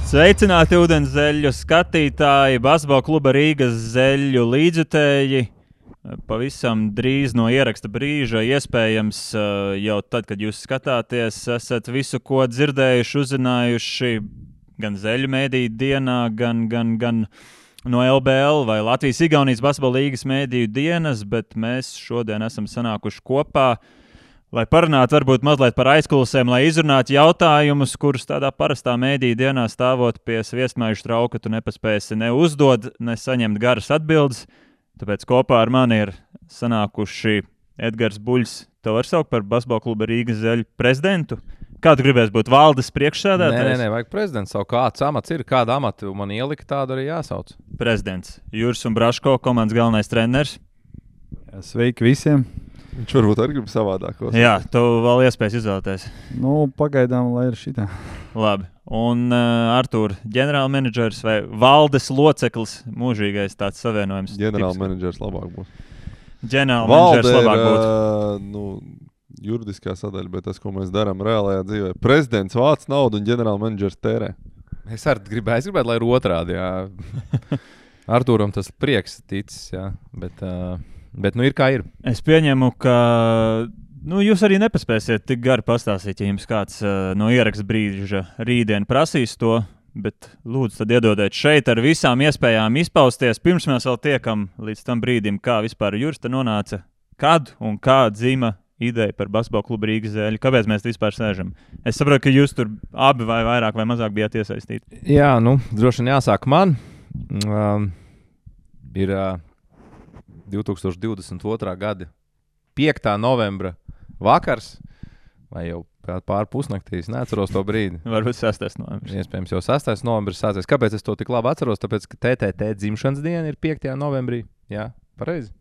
Sveicināti ūdenszeļu skatītāji, basketbola kluba Rīgas zeļu līdzjutēji. Pavisam drīz no ieraksta brīža, iespējams, jau tad, kad jūs skatāties, esat visu, ko dzirdējuši, uzzinājuši gan zeļu mēdīju dienā, gan no LBL vai Latvijas-Igaunijas basketbola līgas mēdīju dienas, bet mēs šodien esam sanākuši kopā, lai parunātu varbūt mazliet par aizkulisēm, lai izrunātu jautājumus, kurus tādā parastā mēdīju dienā stāvot pie sviestmaižu trauka tu nepaspēsi ne uzdot, ne saņemt garas atbildes. Tāpēc kopā ar mani ir sanākuši Edgars Buļs. Tev var saukt par basketbola kluba Rīgas zeļu prezidentu? Kādu gribēs būt valdes priekšsēdētājs? Nē, vajag prezidents. Savu kāds amats ir, kādu amatu man ielika, tādu arī jāsauc. Prezidents. Juris un Braško, komandas galvenais treneris. Sveiki visiem. Viņš varbūt arī grib savādākos. Jā, tev vēl iespējas izvēlēties. Pagaidām, lai ir šitā. Labi. Un Artūr, ģenerālmenedžers vai valdes loceklis, mūžīgais tāds savienojums? Ģenerālmenedžers labāk būs. Ģenerālmenedžers labāk būtu. Juridiskā sadaļa, bet tas, ko mēs darām reālajā dzīvē. Prezidents vāc naudu un ģenerālmenedžers tērē. Es gribētu, lai ir otrādi, jā. Artūram tas prieks ticis, jā, bet ir kā ir. Es pieņemu, ka jūs arī nepaspēsiet tik gari pastāstīt, ja jums kāds no ieraksta brīža rītdien prasīs to, bet lūdzu tad iedodiet šeit ar visām iespējām izpausties. Pirms mēs vēl tiekam līdz tam brīdim, kā vispār Juris te nonāca, kad un kā dzima ideja par basketbola klubu Rīgas zeļu. Kāpēc mēs vispār sēžam? Es saprotu, ka jūs tur abi vai vairāk vai mazāk bijāt iesaistīti. Jā, droši vien jāsāk man. Ir 2022. gada 5. novembra vakars, vai jau pār pusnaktīs, neatceros to brīdi. Varbūt 6. novembris. Iespējams jau 6. novembris sācies. Kāpēc es to tik labi atceros? Tāpēc, ka TTT dzimšanas diena ir 5. novembrī. Jā, pareizi.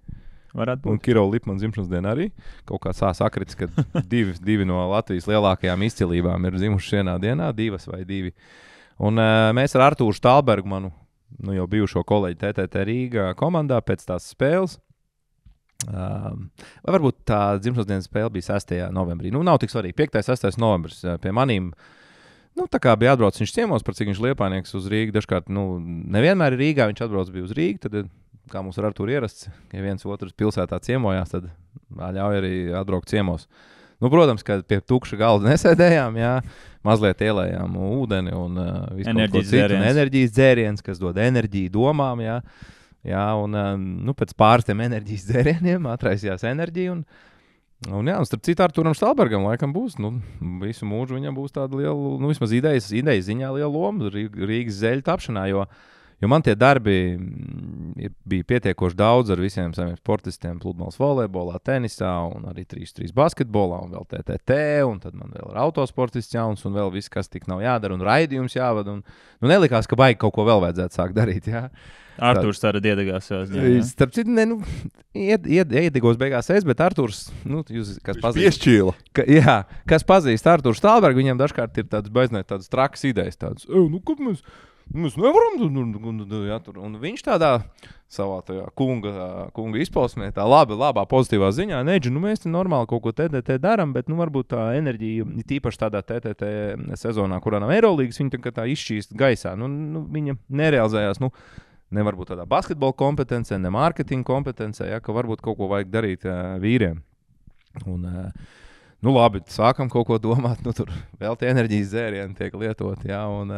Varētu būt. Un Kiro Lipman dzimšanas diena arī. Kaut kā sakritis, ka divi no Latvijas lielākajām izcilībām ir zimuši vienā dienā, 2 vai 2. Un mēs ar Artūru Štālbergu, manu jau bijušo kolēģi TTT Rīgā komandā pēc tās spēles. Vai varbūt tā dzimšanas dienas spēle bija 6. novembrī. Nav tik svarīgi. 5. 6. novembris pie manīm. Tā kā bija atbrauc viņš ciemos, par cik viņš liepājnieks uz Rīgu. Dažkārt, nevienmēr ir Rīgā, viņš atbrauc bija uz Rīgu, tad, kā mums ar Artūru ierasts, ja viens otrs pilsētā ciemojās, tad ļauj arī atbraukt ciemos. Protams, ka pie tukša galda nesēdējām, jā, mazliet ielējām ūdeni un visu kaut ko citu. Enerģijas dzēriens, kas dod enerģiju domām, jā. Jā, un pēc pāris tiem enerģijas dzērieniem atraisījās enerģija. Un starp citu Artūram Štālbergam laikam būs, visu mūžu viņam būs tāda liela, vismaz idejas ziņā liela loma Rīgas zeļu tapšanā, jo man tie darbi bija pietiekoši daudz ar visiem saviem sportistiem, pludmales volejbolā, tenisā un arī 3x3 basketbolā un vēl TTT, un tad man vēl ir autosportists jauns un vēl viss, kas tik nav jādara un raidījums jāvada. Nelikās, ka baigi kaut ko vēl vajadzētu sākt darīt, jā. Artūrs tāda iedegās savās ziņā. Starp citu, iedegos beigās bet Artūrs, jūs, kas pazīst. Piešķīla. Kas pazīst Artūru Štālbergu, viņam dažkārt ir tādas trakas idejas, tādas, kad mēs nevaram, un viņš tādā savā tajā kunga izpausmē, tā labā pozitīvā ziņā, mēs te normāli kaut ko TTT daram, bet varbūt tā enerģija, tīpaši tādā TTT sezonā, kurā nav Eirolīgas, viņa tā izšķīst gaisā, viņa nerealizējās, nevar būt tādā basketbola kompetencē, ne mārketinga kompetencē, ka varbūt kaut ko vajag darīt vīriem. Un, labi, sākam kaut ko domāt, tur vēl tie enerģijas dzērieni tiek lietot, jā, un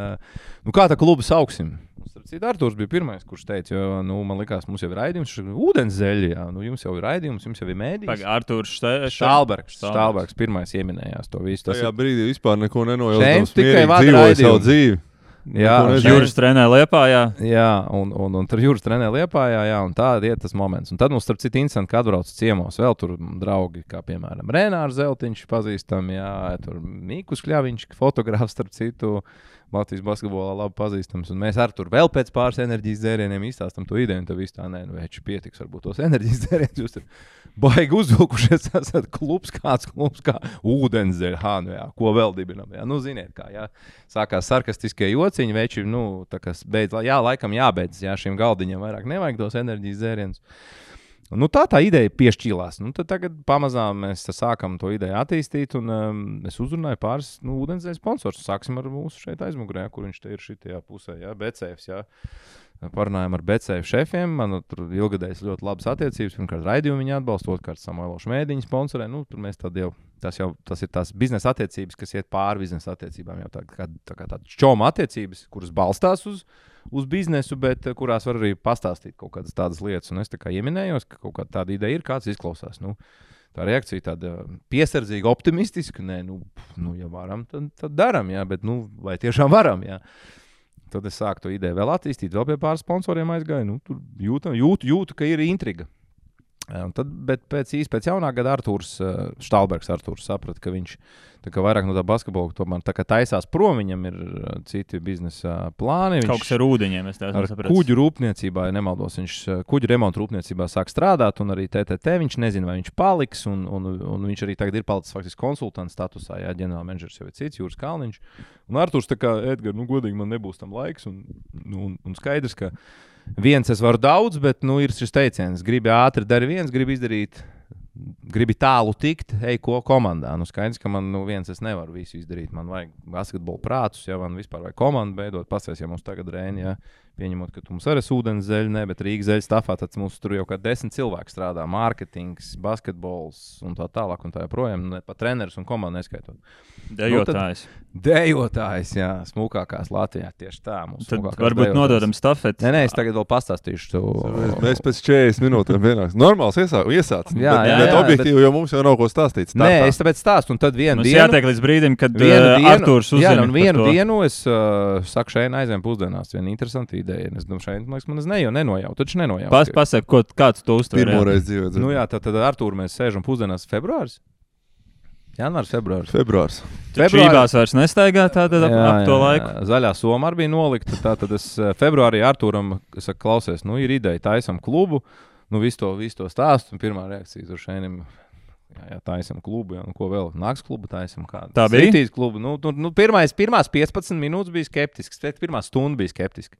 kā tā klubu sauksim? Artūrs bija pirmais, kurš teica, jo, man likās, mums jau ir raidījums, ūdenszeļi, jā, jums jau ir raidījums, jums jau ir mēdījis. Artūrs Štālbergs pirmais ieminējās to visu. Tajā brīdī vispār neko nenojautams, mierīgi dzīvoja savu dzīvi. Jā, Juris trenē Liepājā. Jā, un tur Juris trenē Liepājā, jā, un tā iet tas moments. Un tad mums starp citu interesanti, ka atbrauc ciemos vēl tur draugi, kā piemēram Renārs Zeltiņš pazīstam, jā, tur Mīkus Kļaviņš, fotogrāfs starp citu, Latvijas basketbolā labi pazīstams, un mēs ar tur vēl pēc pāris enerģijas dzērieniem izstāstam to ideju, un tad viss tā, veči pietiks varbūt tos enerģijas dzērienus, jūs tur baigi uzvilkušies, esat klubs kā ūdenszeļi, ko vēl dibinam, jā, ziniet kā, jā, sākās sarkastiskie jociņi, veči, tā kas beidz, jā, laikam jābeidz, jā, šiem galdiņiem vairāk nevajag tos enerģijas dzērienus. Nu, tā ideja piešķīlās. Nu, tad tagad pamazām mēs sākam to ideju attīstīt, un es uzrunāju pāris ūdenszeļu sponsors. Sāksim ar mūsu šeit aizmugurē, kur viņš te ir šitajā pusē, BCF. Parunājām ar BCF šefiem. Man tur ilgadējas ļoti labas attiecības. Pirmkārt, raidījumu viņi atbalsta, otrkārt, Samuelošu mēdīņu sponsorē. Nu, tur mēs tad jau, tas ir tās biznesa attiecības, kas iet pāri biznesa attiecībām. Jau tā kā tādas čoma attiecības, kuras balstās uz biznesu, bet kurās var arī pastāstīt kaut kādas tādas lietas. Un es tā kā ieminējos, ka kaut kāda tāda ideja ir, kāds izklausās. Nu, tā reakcija tāda piesardzīga, optimistiska. Nē, ja varam, tad daram, jā, bet vai tiešām varam, jā. Tad es sāku to ideju vēl attīstīt, vēl pie pāris sponsoriem aizgāju. Nu, tur jūtu, ka ir intriga. Bet pēc jaunā gada Štālbergs saprata, ka viņš vairāk no tā basketbola tomēr tā kā taisās prom, viņam ir citi biznesa plāni. Kaut kas ar ūdeņiem, es tās sapratu. Kuģu rūpniecībā, ja nemaldos, viņš kuģu remontu rūpniecībā sāk strādāt, un arī TTT viņš nezina, vai viņš paliks, un viņš arī tagad ir palicis faktiski konsultants statusā, ģenerālmenedžers jau ir cits, Jūras Kalniņš. Un Arturs tā kā, Edgar, godīgi man nebūs tam laiks, un skaidrs, ka viens es varu daudz, bet ir šis teiciens, gribi ātri dari viens, gribi tālu tikt, ej ko komandā. Skaidrs, ka man viens es nevaru visu izdarīt. Man vajag basketbolu prātus, man vispār vajag komandu beidot. Pasties, ja mums tagad Rēni, pieņemot, ka tu mums arī ūdenszeļi, ne, bet Rīgas zeļu stafā, tad mums tur jau kā 10 cilvēki strādā. Mārketings, basketbols un tā tālāk un tā joprojām. Pat treneris un komandu neskaitot. Dejotājs, jā, smukākās Latvijā. Tieši tā. Tad varbūt nododam stafeti. Nē, es tagad vēl pastāstīšu. Mēs pēc 40 minūtēm vienāks. Normāls iesāc. Bet objektīvi, jo mums jau nav ko stāstīt. Nē, es tāpēc stāstu. Un tad vienu dienu. Jātiek līdz brīdim, kad Arturs uzzina. Jā, un vienu dienu es saku šeit aizvien pusdienās. Viena interesanta ideja. Es domāju, šeit, man nenojautu. Taču nenojautu. Pasaka, kāds to uztver. Pirmoreiz dzīvē. Nu jā, tad Artūru mēs sēžam pusdienās februāris. Janvārs, februārs. Čībās vairs nestaigā tātad ap to laiku. Zaļā soma arī bija nolikta. Tātad es februārī Artūram saku, klausies, ir ideja, taisam klubu. Visu to stāstu. Un pirmā reakcija tur šeinim, jā, taisam klubu. Jā, ko vēl? Nāks klubu taisam kādu. Tā bija? Citīs klubu. Pirmās 15 minūtes bija skeptisks. Pirmā stunda bija skeptiska.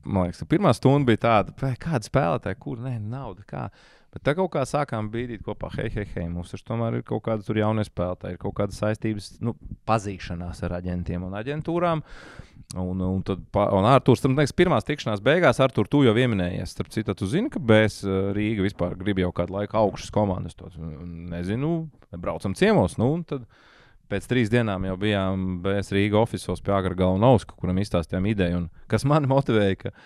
Man liekas, pirmā stunda bija tāda, kāda spēlētāja, kur, nauda, kā. Bet tā kaut kā sākām bīdīt kopā, hei, mums taču tomēr ir kaut kāda tur jaunie spēlētāji, ir kaut kādas saistības, pazīšanās ar aģentiem un aģentūrām. Un Arturs, tam liekas, pirmās tikšanās beigās, Artur, tu jau ieminējies. Starp citu, tu zini, ka BS Rīga vispār grib jau kādu laiku augšas komandas. Nezinu, braucam ciemos, un tad pēc 3 dienām jau bijām BS Rīga ofisos pie Agragala un Auska, kuram izstāstījām ideju, un kas mani motivēja, ka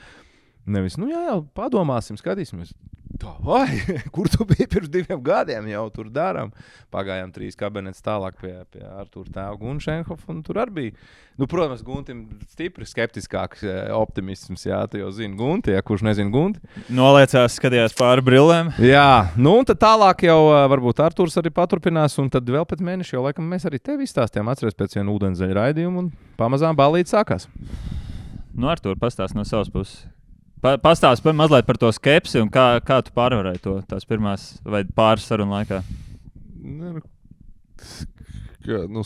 nevis, jā, padomāsim, skatīsimies. Tā vai, kur tu biji pirms 2 gadiem, jau tur darām. Pagājām 3 kabinetes tālāk pie Artūra tēva Guna Šenhofa, un tur arī bija. Protams, Guntim stipri skeptiskāks optimisms, jā, tu jau zini Gunti, ja kurš nezina Gunti. Noliecās, skatījās pāri brillēm. Jā, un tad tālāk jau varbūt Artūrs arī paturpinās, un tad vēl pēc mēneša jau laikam mēs arī tevi izstāstījām, atceries pēc viena ūdenszeļa raidījuma, un pamazām ballīte sākās. Artūr, pastāst no savas puses. Pastāst mazliet par to skepsi un kā tu pārvarēji to tās pirmās vai pāris sarunu laikā.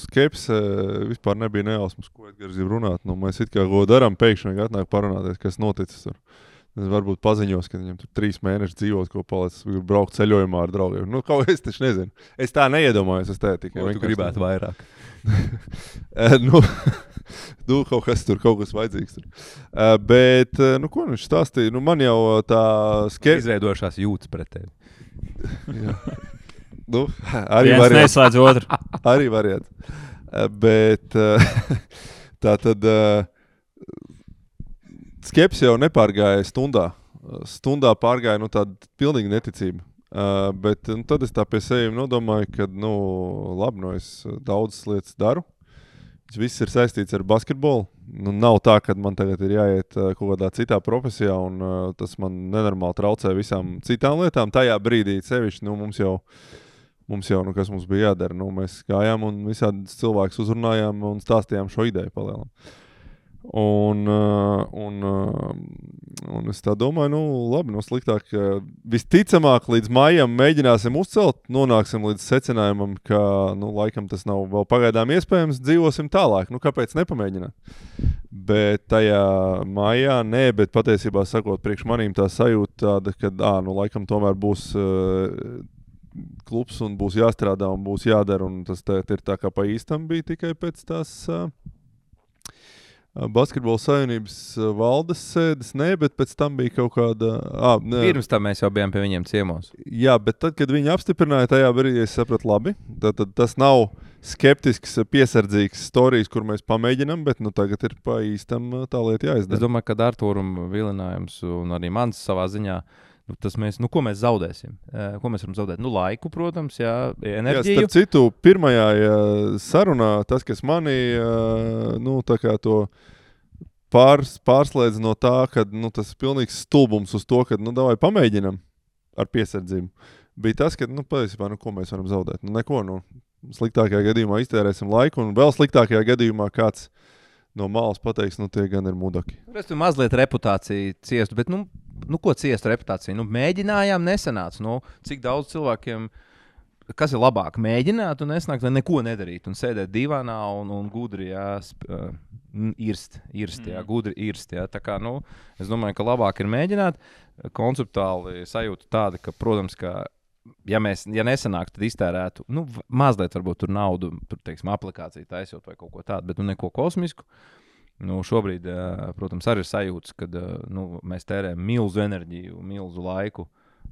Skepse vispār nebija nejausmas, ko Edgars grib runāt. Mēs it kā ko darām, pēkšņi atnāk parunāties, kas noticis tur. Es varbūt paziņos, ka viņam tur 3 mēneši dzīvos, ko palicis, braukt ceļojumā ar draugiem. Kaut es taču nezinu. Es tā neiedomājos, es tā tikai. Tu gribētu vairāk. Kaut kas vajadzīgs tur. Bet, ko viņš stāstīja? Man jau tā skepse. Izveidošās jūtas pret tevi. Jā. Arī viens neslēdz otru. Arī variants. Bet tā tad skepse jau nepārgāja stundā. Stundā pārgāja tāda pilnīga neticība. Bet tad es tā pie sevi nodomāju, ka labi, es daudzas lietas daru. Viss ir saistīts ar basketbolu. Nav tā, ka man tagad ir jāiet kaut kādā citā profesijā, un tas man nenormāli traucē visām citām lietām. Tajā brīdī sevišķi mums jau kas mums bija jādara. Mēs gājām un visādi cilvēkus uzrunājām un stāstījām šo ideju palielam. Un es tā domāju, labi, sliktāk. Visticamāk, līdz maijam mēģināsim uzcelt, nonāksim līdz secinājumam, ka, laikam tas nav vēl pagaidām iespējams, dzīvosim tālāk. Kāpēc nepamēģināt? Bet tajā maijā nē, bet patiesībā sakot, priekš manīm tā sajūta tāda, ka, laikam tomēr būs klubs un būs jāstrādā un būs jādara, un tas ir tā kā pa īstam bija tikai pēc tās... Basketbola savienības valdes sēdes, bet pēc tam bija kaut kāda... Pirms tam mēs jau bijām pie viņiem ciemos. Jā, bet tad, kad viņi apstiprināja tajā brīdī, es sapratu labi. Tad tas nav skeptisks, piesardzīgs storijas, kur mēs pamēģinām, bet tagad ir pa īstam tā lieta jāizdara. Es domāju, ka Artūram vilinājums un arī mans savā ziņā, ko mēs zaudēsim? Ko mēs varam zaudēt? Laiku, protams, enerģiju. Jā, starp citu, pirmajā sarunā tas, kas mani tā kā to pārslēdz no tā, ka tas ir pilnīgs stulbums uz to, ka davai pamēģinam ar piesardzību. Bija tas, ka, patiesībā, ko mēs varam zaudēt? Neko, sliktākajā gadījumā iztērēsim laiku, un vēl sliktākajā gadījumā kāds no malas pateiks, tie gan ir mudaki. Es tur mazliet reputāciju ciestu, bet, ko ciest reputāciju? Mēģinājām, nesanāca. Cik daudz cilvēkiem, kas ir labāk, mēģināt un nesnākt, vai neko nedarīt un sēdēt divānā un gudri, gudri irst. Tā kā, es domāju, ka labāk ir mēģināt. Konceptuāli sajūta tāda, ka, protams, ka ja nesanāk, tad iztērētu, mazliet varbūt tur naudu, teiksim, aplikāciju taisot vai kaut ko tādu, bet neko kosmisku. Šobrīd, protams, arī ir sajūtas, kad mēs tērējam milzu enerģiju, milzu laiku,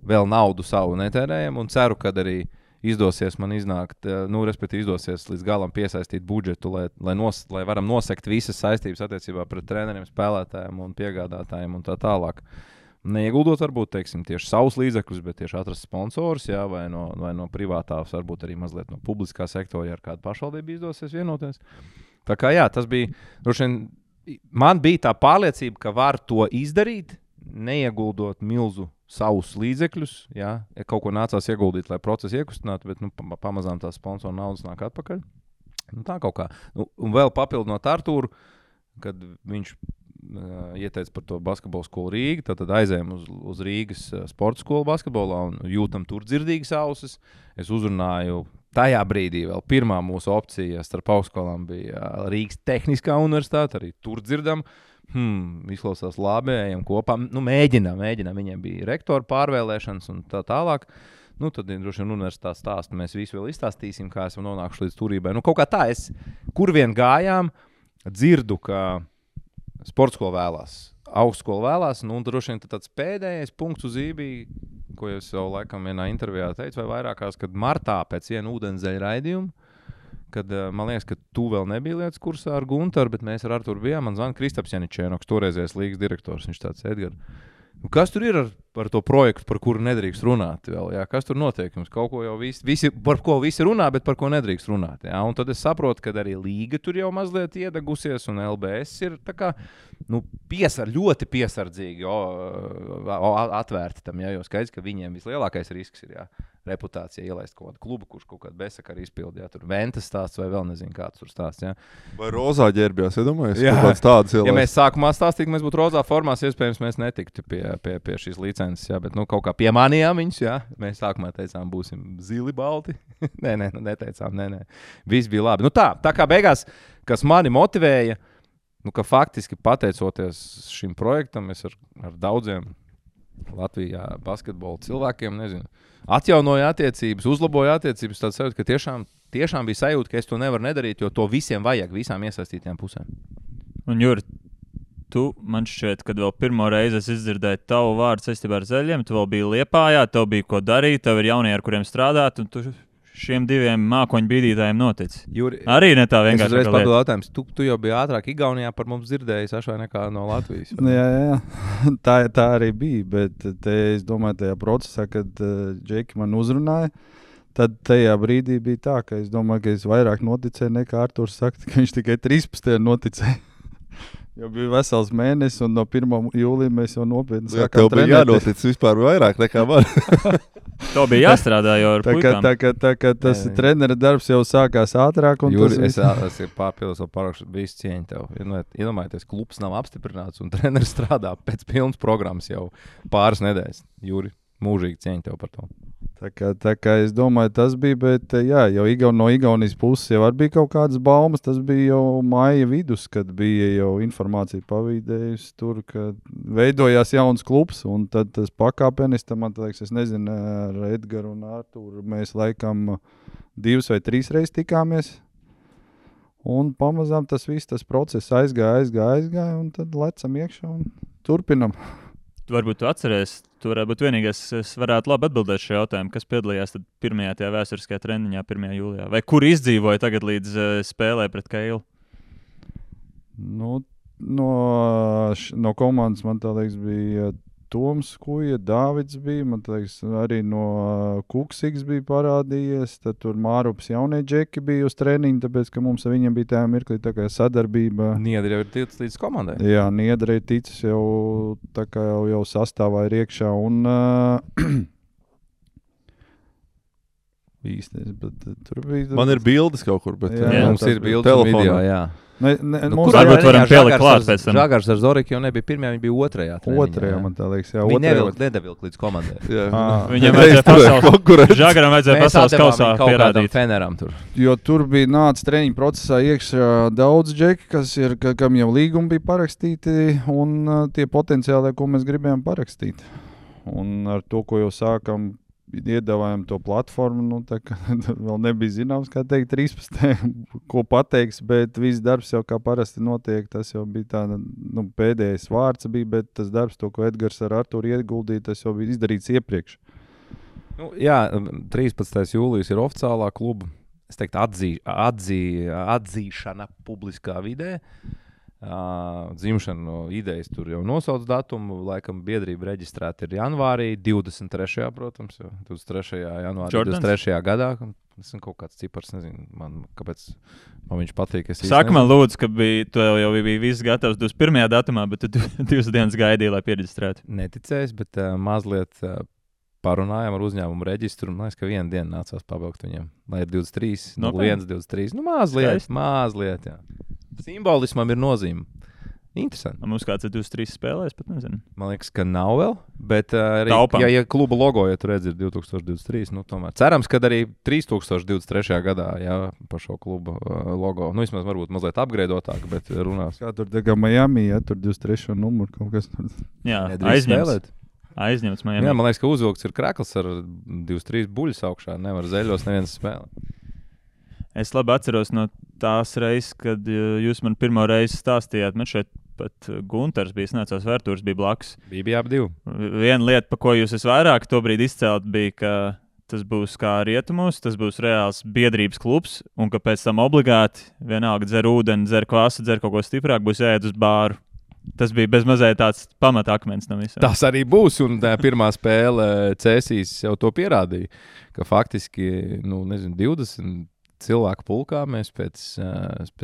vēl naudu savu netērējam un ceru, ka arī izdosies man iznākt, respektīvi izdosies līdz galam piesaistīt budžetu, lai varam nosekt visas saistības attiecībā pret treneriem, spēlētājiem un piegādātājiem un tā tālāk. Neieguldot varbūt, teiksim, tieši savus līdzekļus, bet tieši atrast sponsors, vai no privātās, varbūt arī mazliet no publiskā sektora, ja ar kādu pašvaldību izdosies vienoties. Tā kā tas bija, man bija tā pārliecība, ka var to izdarīt, neieguldot milzu savus līdzekļus, ja kaut ko nācās ieguldīt, lai procesu iekustinātu, bet pamazām tā sponsora naudas nāk atpakaļ. Tā kaut kā. Un vēl papildinot Artūru, kad viņš ieteica par to basketbolu skolu Rīga, tad aizējām uz Rīgas sporta skolu basketbolā un jūtam tur dzirdīgas ausis. Es uzrunāju tajā brīdī vēl pirmā mūsu opcija starp augstskolām bija Rīgas Tehniskā universitāte, arī tur dzirdam. Izklausās labi, ejam kopā. Mēģinām. Viņiem bija rektora pārvēlēšanas un tā tālāk. Tad droši vien universitātes stāstu mēs visu vēl izstāstīsim, kā esam nonākuši līdz turībai. Kaut kā tā, kur vien gājām, dzirdu, ka sporta skola vēlās, augstskola vēlās, un droši vien tāds pēdējais punkts uz ībī, ko es jau laikam vienā intervijā teicu, vai vairākās, kad martā pēc viena ūdenszeļa raidījuma, kad man liekas, ka tu vēl nebija lietas kursā ar Guntaru, bet mēs ar Arturu bijām, man zvana Kristaps Janičēnoks, toreizējais līgas direktors, viņš tāds Edgar. Kas tur ir ar to projektu, par kuru nedrīkst runāt vēl? Jā? Kas tur notiek? Jums kaut ko jau par ko visi runā, bet par ko nedrīkst runāt. Jā? Un tad es saprotu, ka arī līga tur jau mazliet iedegusies, un LBS ir tā kā, ļoti piesardzīgi atvērti tam, jā, jo skaidrs, ka viņiem vislielākais risks ir, jā, reputācija ielaist kaut kādu klubu, kurš kaut kādu besakaru izpildi, jā, tur Ventas stāsts vai vēl nezinu kāds tur stāsts, jā. Vai rozā ģērbjās, iedomājies? Ja mēs sākumā stāstīt, mēs būtu rozā formās, iespējams, mēs netiktu pie šīs licences, jā, bet kaut kā piemanījām viņus, jā. Mēs sākumā teicām, būsim zili balti. neteicām. Viss bija labi. Tā kā beigās, kas mani motivēja, ka faktiski pateicoties šim projektam, es ar daudziem Latvijā basketbola cilvēkiem, atjaunoju attiecības, uzlaboju attiecības, tāds sajūta, ka tiešām bija sajūta, ka es to nevaru nedarīt, jo to visiem vajag, visām iesaistītām pusēm. Un Juri, tu man šķiet, kad vēl pirmo reizi es izdzirdēju tavu vārdu saistībā ar Zeļiem, tu vēl biji Liepājā, tev bija ko darīt, tev ir jaunie, ar kuriem strādāt, un tu šiem diviem mākoņu bīdītājiem noticis. Juri, arī ne tā vienkārši. Es uzreiz papildu jautājums. Tu jau biji ātrāk Igaunijā par mums dzirdējis ašvai nekā no Latvijas. Jā. Tā arī bija, bet es domāju, tajā procesā, kad Džeki man uzrunāja, tad tajā brīdī bija tā, ka es domāju, ka es vairāk noticēju nekā Arturs saka, ka viņš tikai 13. noticēja. Jau bija vesels mēnesis, un no 1. jūlija mēs jau nopietni Jā, sākām tev bija trenēties. jānotic vispār vairāk nekā man. To bija jāstrādā jau ar puikām. Tā kā tas trenera darbs jau sākās ātrāk. Jūri, Tas es pārpildus vēl parakšu visu cieņu tev. Iedomājieties, klubs nav apstiprināts un treneris strādā pēc pilnas programmas jau pāris nedēļas. Jūri, mūžīgi cieņu tev par to. Tā kā es domāju, tas bija, bet jā, jau no Igaunijas puses jau bija kaut kādas baumas. Tas bija jau maija vidus, kad bija jau informācija pavīdējusi tur, ka veidojās jauns klubs. Un tad tas pakāpenis, man liekas, es nezinu, ar Edgaru un Arturu mēs laikam 2 vai 3 reizes tikāmies. Un pamazām tas viss, tas process aizgāja, un tad lecam iekšā un turpinam. Varbūt tu atceries, tu varētu būt vienīgais, es varētu labi atbildēt šo jautājumu, kas piedalījās tad pirmajā tajā vēsturiskajā treniņā 1. jūlijā. Vai kur izdzīvoja tagad līdz spēlē pret Keilu? Nu, no komandas man tā liekas bija Toms Kuja, Dāvids bija, man liekas arī no Kuksiks bija parādījies, tad tur Mārups jaunie džeki bija uz treniņu, tāpēc, ka mums ar viņiem bija tā mirklī tā kā sadarbība. Niedri jau ir ticis līdz komandai. Jā, Niedri ir ticis jau tā kā jau sastāvā ir iekšā un īstais, bet tur bija... Man ir bildes kaut kur, bet... Jā, Mums ir bildes un telefonā. video, jā. Kur varbūt varam pielikt klāt pēc tam? Žagars ar Zoriku jau nebija pirmajā, viņa bija otrajā. Otrajā, man tā liekas, jā. Viņa nedevilk līdz komandai. Viņam vajadzēja pasaules... Žagaram vajadzēja pasaules kausā pierādīt. Feneram tur. Jo tur bija nāca treniņu procesā iekšā daudz džeki, kam jau līgumi bija parakstīti, un tie potenciāli, ko mēs gribējām parakstīt. Un ar to, ko jau sākam, iedavājam to platformu, nu tā kā vēl nebija zināms, kā teikt 13. ko pateiks, bet viss darbs jau kā parasti notiek, tas jau bija tāda, pēdējais vārds bija, bet tas darbs, to, ko Edgars ar Arturu ieguldīja, tas jau bija izdarīts iepriekš. Jā, 13. jūlijas ir oficiālā kluba, es teiktu, atzīšana publiskā vidē. Dzimšanu idejas tur jau nosauc datumu, laikam biedrība reģistrēta ir janvārī, 23. protams, 23. janvārī, Jordans? 23. gadā. Tas ir kaut kāds cipars, nezinu, kāpēc man viņš patīk. Saka man lūdzu, ka tu jau bija viss gatavs 21. datumā, bet tu 2 dienas gaidīji, lai pieregistrētu. Neticēs, bet mazliet parunājām ar uzņēmumu reģistru, un man liekas, ka 1 dienu nācās pabeigt viņiem, lai ir 23, 01, 23, mazliet, jā. Simbolismam ir nozīme. Interesanti. Mums kāds ir 23 spēlēs, pat nezinu. Man liekas, ka nav vēl, bet arī, Taupam. ja kluba logo, ja tu redzi, ir 2023, tomēr. Cerams, ka arī 3023. gadā, jā, par šo klubu logo, vismaz varbūt mazliet upgradeotāk, bet runās. Kā tur tā kā Miami, ja tur 23. numuru kaut kas tur. Jā, Nedrīkst spēlēt. aizņemts Miami. Jā, man liekas, ka uzvilkts ir krekls ar 23 buļus augšā, nevar zeļos neviens spēlēt. Es labi atceros no tās reizes, kad jūs man pirmo reizi stāstījāt, man šeit pat Gunters bija snācās vērtūrs, bija blakus. Bija ap 2. Viena lieta, pa ko jūs vairāk tobrīd izcelt, bija, ka tas būs kā rietumos, tas būs reāls biedrības klubs, un ka pēc tam obligāti vienalga dzer ūdeni, dzer kvasu, dzer kaut ko stiprāk, būs jāiet uz bāru. Tas bija bezmazliet tāds pamatakmens no visām. Tas arī būs, un tā pirmā spēle Cēsīs jau to pierādīja, ka faktiski, 20 cilvēku pulkā mēs pēc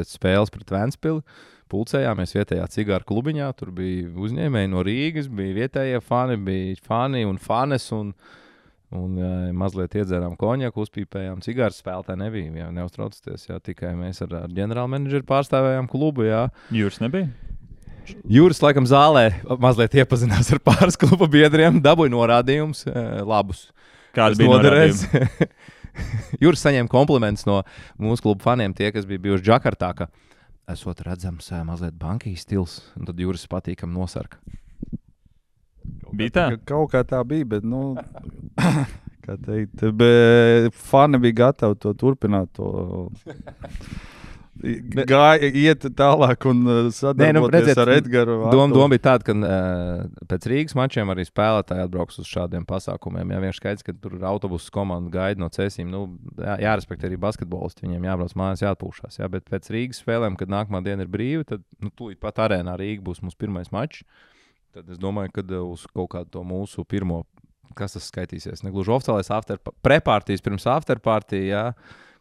spēles pret Ventspili pulcējāmies vietējā cigāru klubiņā. Tur bija uzņēmēji no Rīgas, bija vietējie fani, bija fani un fanes, un mazliet iedzērām konjaku, uzpīpējām cigāru, spēlētāji nebija. Jā, neuztraucieties, jā, tikai mēs ar ģenerālmenedžeru pārstāvējām klubu. Jā. Jūras nebija? Jūras laikam zālē mazliet iepazinās ar pāris kluba biedriem, dabūja norādījumus labus. Kāda bija norādījuma? Jūras saņēma komplimentus no mūsu klubu faniem, tie, kas bija bijuši Džakartā, ka esot redzams mazliet bankijas stils, un tad Jūras patīkam nosarka. Bija tā? Kaut kā tā bija, bet, kā teikt, bet fani bija gatavi to turpināt, to iet tālāk un sadarboties ar Edgaru. Doma bija tāda, ka pēc Rīgas mačiem arī spēlētāji atbrauks uz šādiem pasākumiem. Jā, vienkārši skaidrs, ka tur autobusu komanda gaida no Cēsīm. Jārespektē arī basketbolisti, viņiem jābrauc mājās, jāatpūšās. Jā, bet pēc Rīgas spēlēm, kad nākamā diena ir brīva, tad tūlīt pat arēnā Rīga būs mūsu pirmais mačs. Tad es domāju, ka uz kaut kādu to mūsu pirmo, kas tas skaitīsies, negluži oficiālais prepārtijas pirms afterpartija, jā,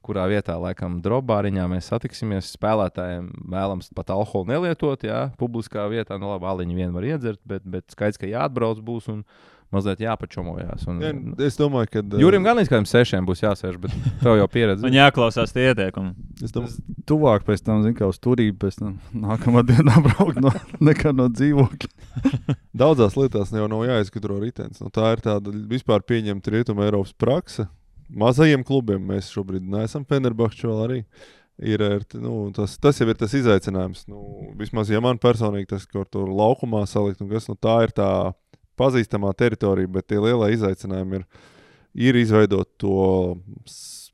kurā vietā, laikam, drobāriņā mēs satiksimies. Spēlētājiem vēlams pat alkoholu nelietot, jā, publiskā vietā. Nu, labi, aliņu vien var iedzert, bet skaidrs, ka jāatbrauc būs un mazliet jāpačomojās. Es domāju, ka Jurim gan līdz kādiem 6 būs jāsēž, bet tev jau pieredze. Un jāklausās tie ieteikumi. Es domāju, Tuvāk pēc tam, zin kā uz turību, pēc tam nākamā dienā braukt nekā no dzīvokļa. daudzās lietās jau nav jāizgudro ritenis. Nu, tā ir tāda vispār pieņemta Rietuma Eiropas prakse. Mazajiem klubiem mēs šobrīd neesam Fenerbahču vēl arī. Tas jau ir tas izaicinājums. Vismaz, ja man personīgi tas kaut tur laukumā salikt, tā ir tā pazīstamā teritorija, bet tie lielie izaicinājumi ir izveidot to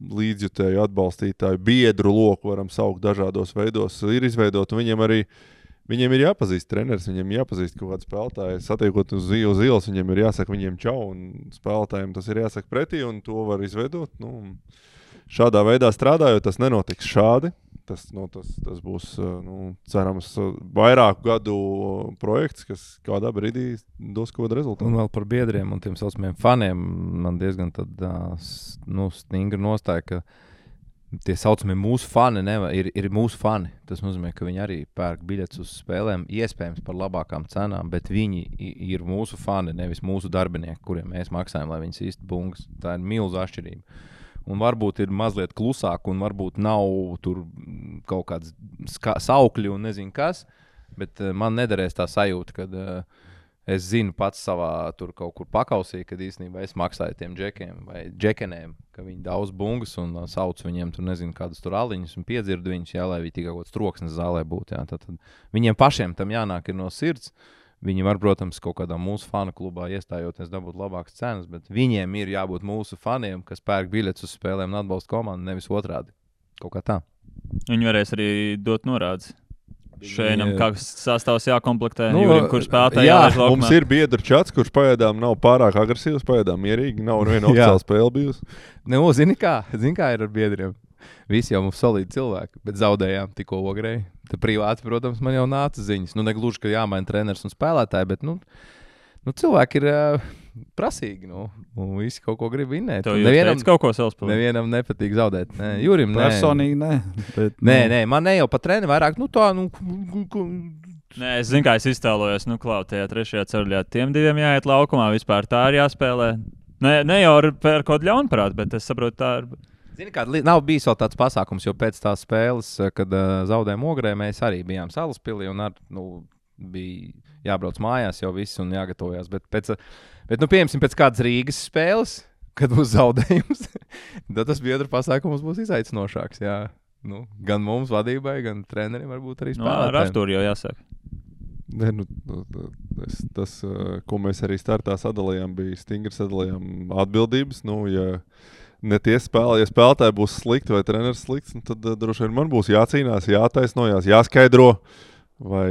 līdzjutēju, atbalstītāju, biedru loku, varam saukt dažādos veidos, ir izveidot, un viņiem ir jāpazīst treneris, viņiem jāpazīst kaut kāds spēlētājs, satiekot uz ielas, viņiem ir jāsaka viņiem čau, un spēlētājiem tas ir jāsaka pretī, un to var izveidot. Šādā veidā strādājot, tas nenotiks šādi. Tas būs, cerams, vairāku gadu projekts, kas kādā brīdī dos kaut kādu rezultātu. Un vēl par biedriem un tiem saucamiem faniem man diezgan stingra nostāja, ka tie saucamie mūsu fani ir mūsu fani. Tas nozīmē, ka viņi arī pērk biļetes uz spēlēm, iespējams par labākām cenām, bet viņi ir mūsu fani, nevis mūsu darbinieki, kuriem mēs maksājam, lai viņas īsti bungas. Tā ir milza atšķirība. Un varbūt ir mazliet klusāk, un varbūt nav tur kaut kāds saukļi un nezinu kas, bet man nederēs tā sajūta, kad es zinu pats savā tur kaut kur pakausī, kad īstenībā es maksāju tiem džekiem vai džekenēm, ka viņi daudz bungas un sauc viņiem tur nezinu kādus tur aliņus un piedzirdu viņus, jā, lai viņi tikai kaut kāds troksnes zālē būtu. Jā. Tad viņiem pašiem tam jānāk ir no sirds. Viņi var, protams, kaut kādā mūsu fanu klubā iestājoties dabūt labākas cenas, bet viņiem ir jābūt mūsu faniem, kas pērk biļetes uz spēlēm un atbalsta komandu, nevis otrādi. Kaut kā tā. Viņi varēs arī dot norādes. Šeinam, kāds sastāvs jākomplektē, Jurim, kurš spēlētāji jālaiž laukumā. Mums ir biedru čats, kurš pagaidām nav pārāk agresīvs, pagaidām mierīgi, nav viena oficiāla spēle bijusi. Zini kā ir ar biedriem? Visi jau mums solīdi cilvēki, bet zaudējām tikko Ogrei. Te privāti, protams, man jau nāca ziņas. Negluži, ka jāmaina treneris un spēlētāji, bet cilvēki ir prasīgi. Visi kaut ko grib vinnēt. Nevienam kaut ko savspēlēt. Nevienam nepatīk zaudēt. Nē, Jurim, nē. Personīgi nē. Bet, nē, man ne jau pat treni vairāk, Nē, es zinu, kā es iztēlojos, tajā trešajā ceļā tiem diviem jāiet laukumā, vispār tā ir jāspēlē. Ne jau ar kaut kādu ļaunprātu, bet es saprotu, tā ir. Zini, kā nav bijis vēl tāds pasākums, jo pēc tās spēles, kad zaudējām Ogrē, mēs arī bijām Salaspilī un bija jābrauc mājās jau viss un jāgatavojās. Bet pieņemsim pēc kādas Rīgas spēles, kad būs zaudējums, tad tas biedru pasākums būs izaicinošāks. Jā. Gan mums vadībai, gan trenerim varbūt arī spēlētājiem. Ar Artūru jau jāsaka. Tas, ko mēs arī startā sadalījām, bija stingri sadalījām atbildības. Ja spēlētāji būs slikti vai treneris slikts, tad droši vien man būs jācīnās, jātaisnojās, jāskaidro. Vai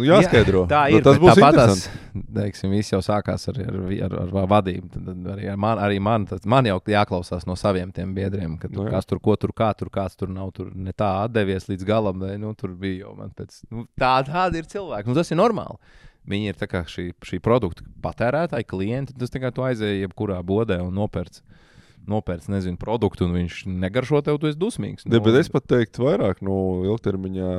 jāskaidro. Tā ir. Tas būs interesanti. Teiksim, viss jau sākās ar vadību. Tad arī man jau jāklausās no saviem tiem biedriem, ka kas tur, ko tur, kā tur, kāds tur nav tur ne tā atdevies līdz galam, vai tur bija jau man pēc. Tādi ir cilvēki. Tas ir normāli. Viņi ir tā kā šī produkta patērētāji, klienti. Tas tā kā tu aizēji jebkurā bodē un nopērts, nezinu, produktu, un viņš negaršo tev, tu esi dusmīgs. Bet es pat teiktu vairāk, ilgtermiņā,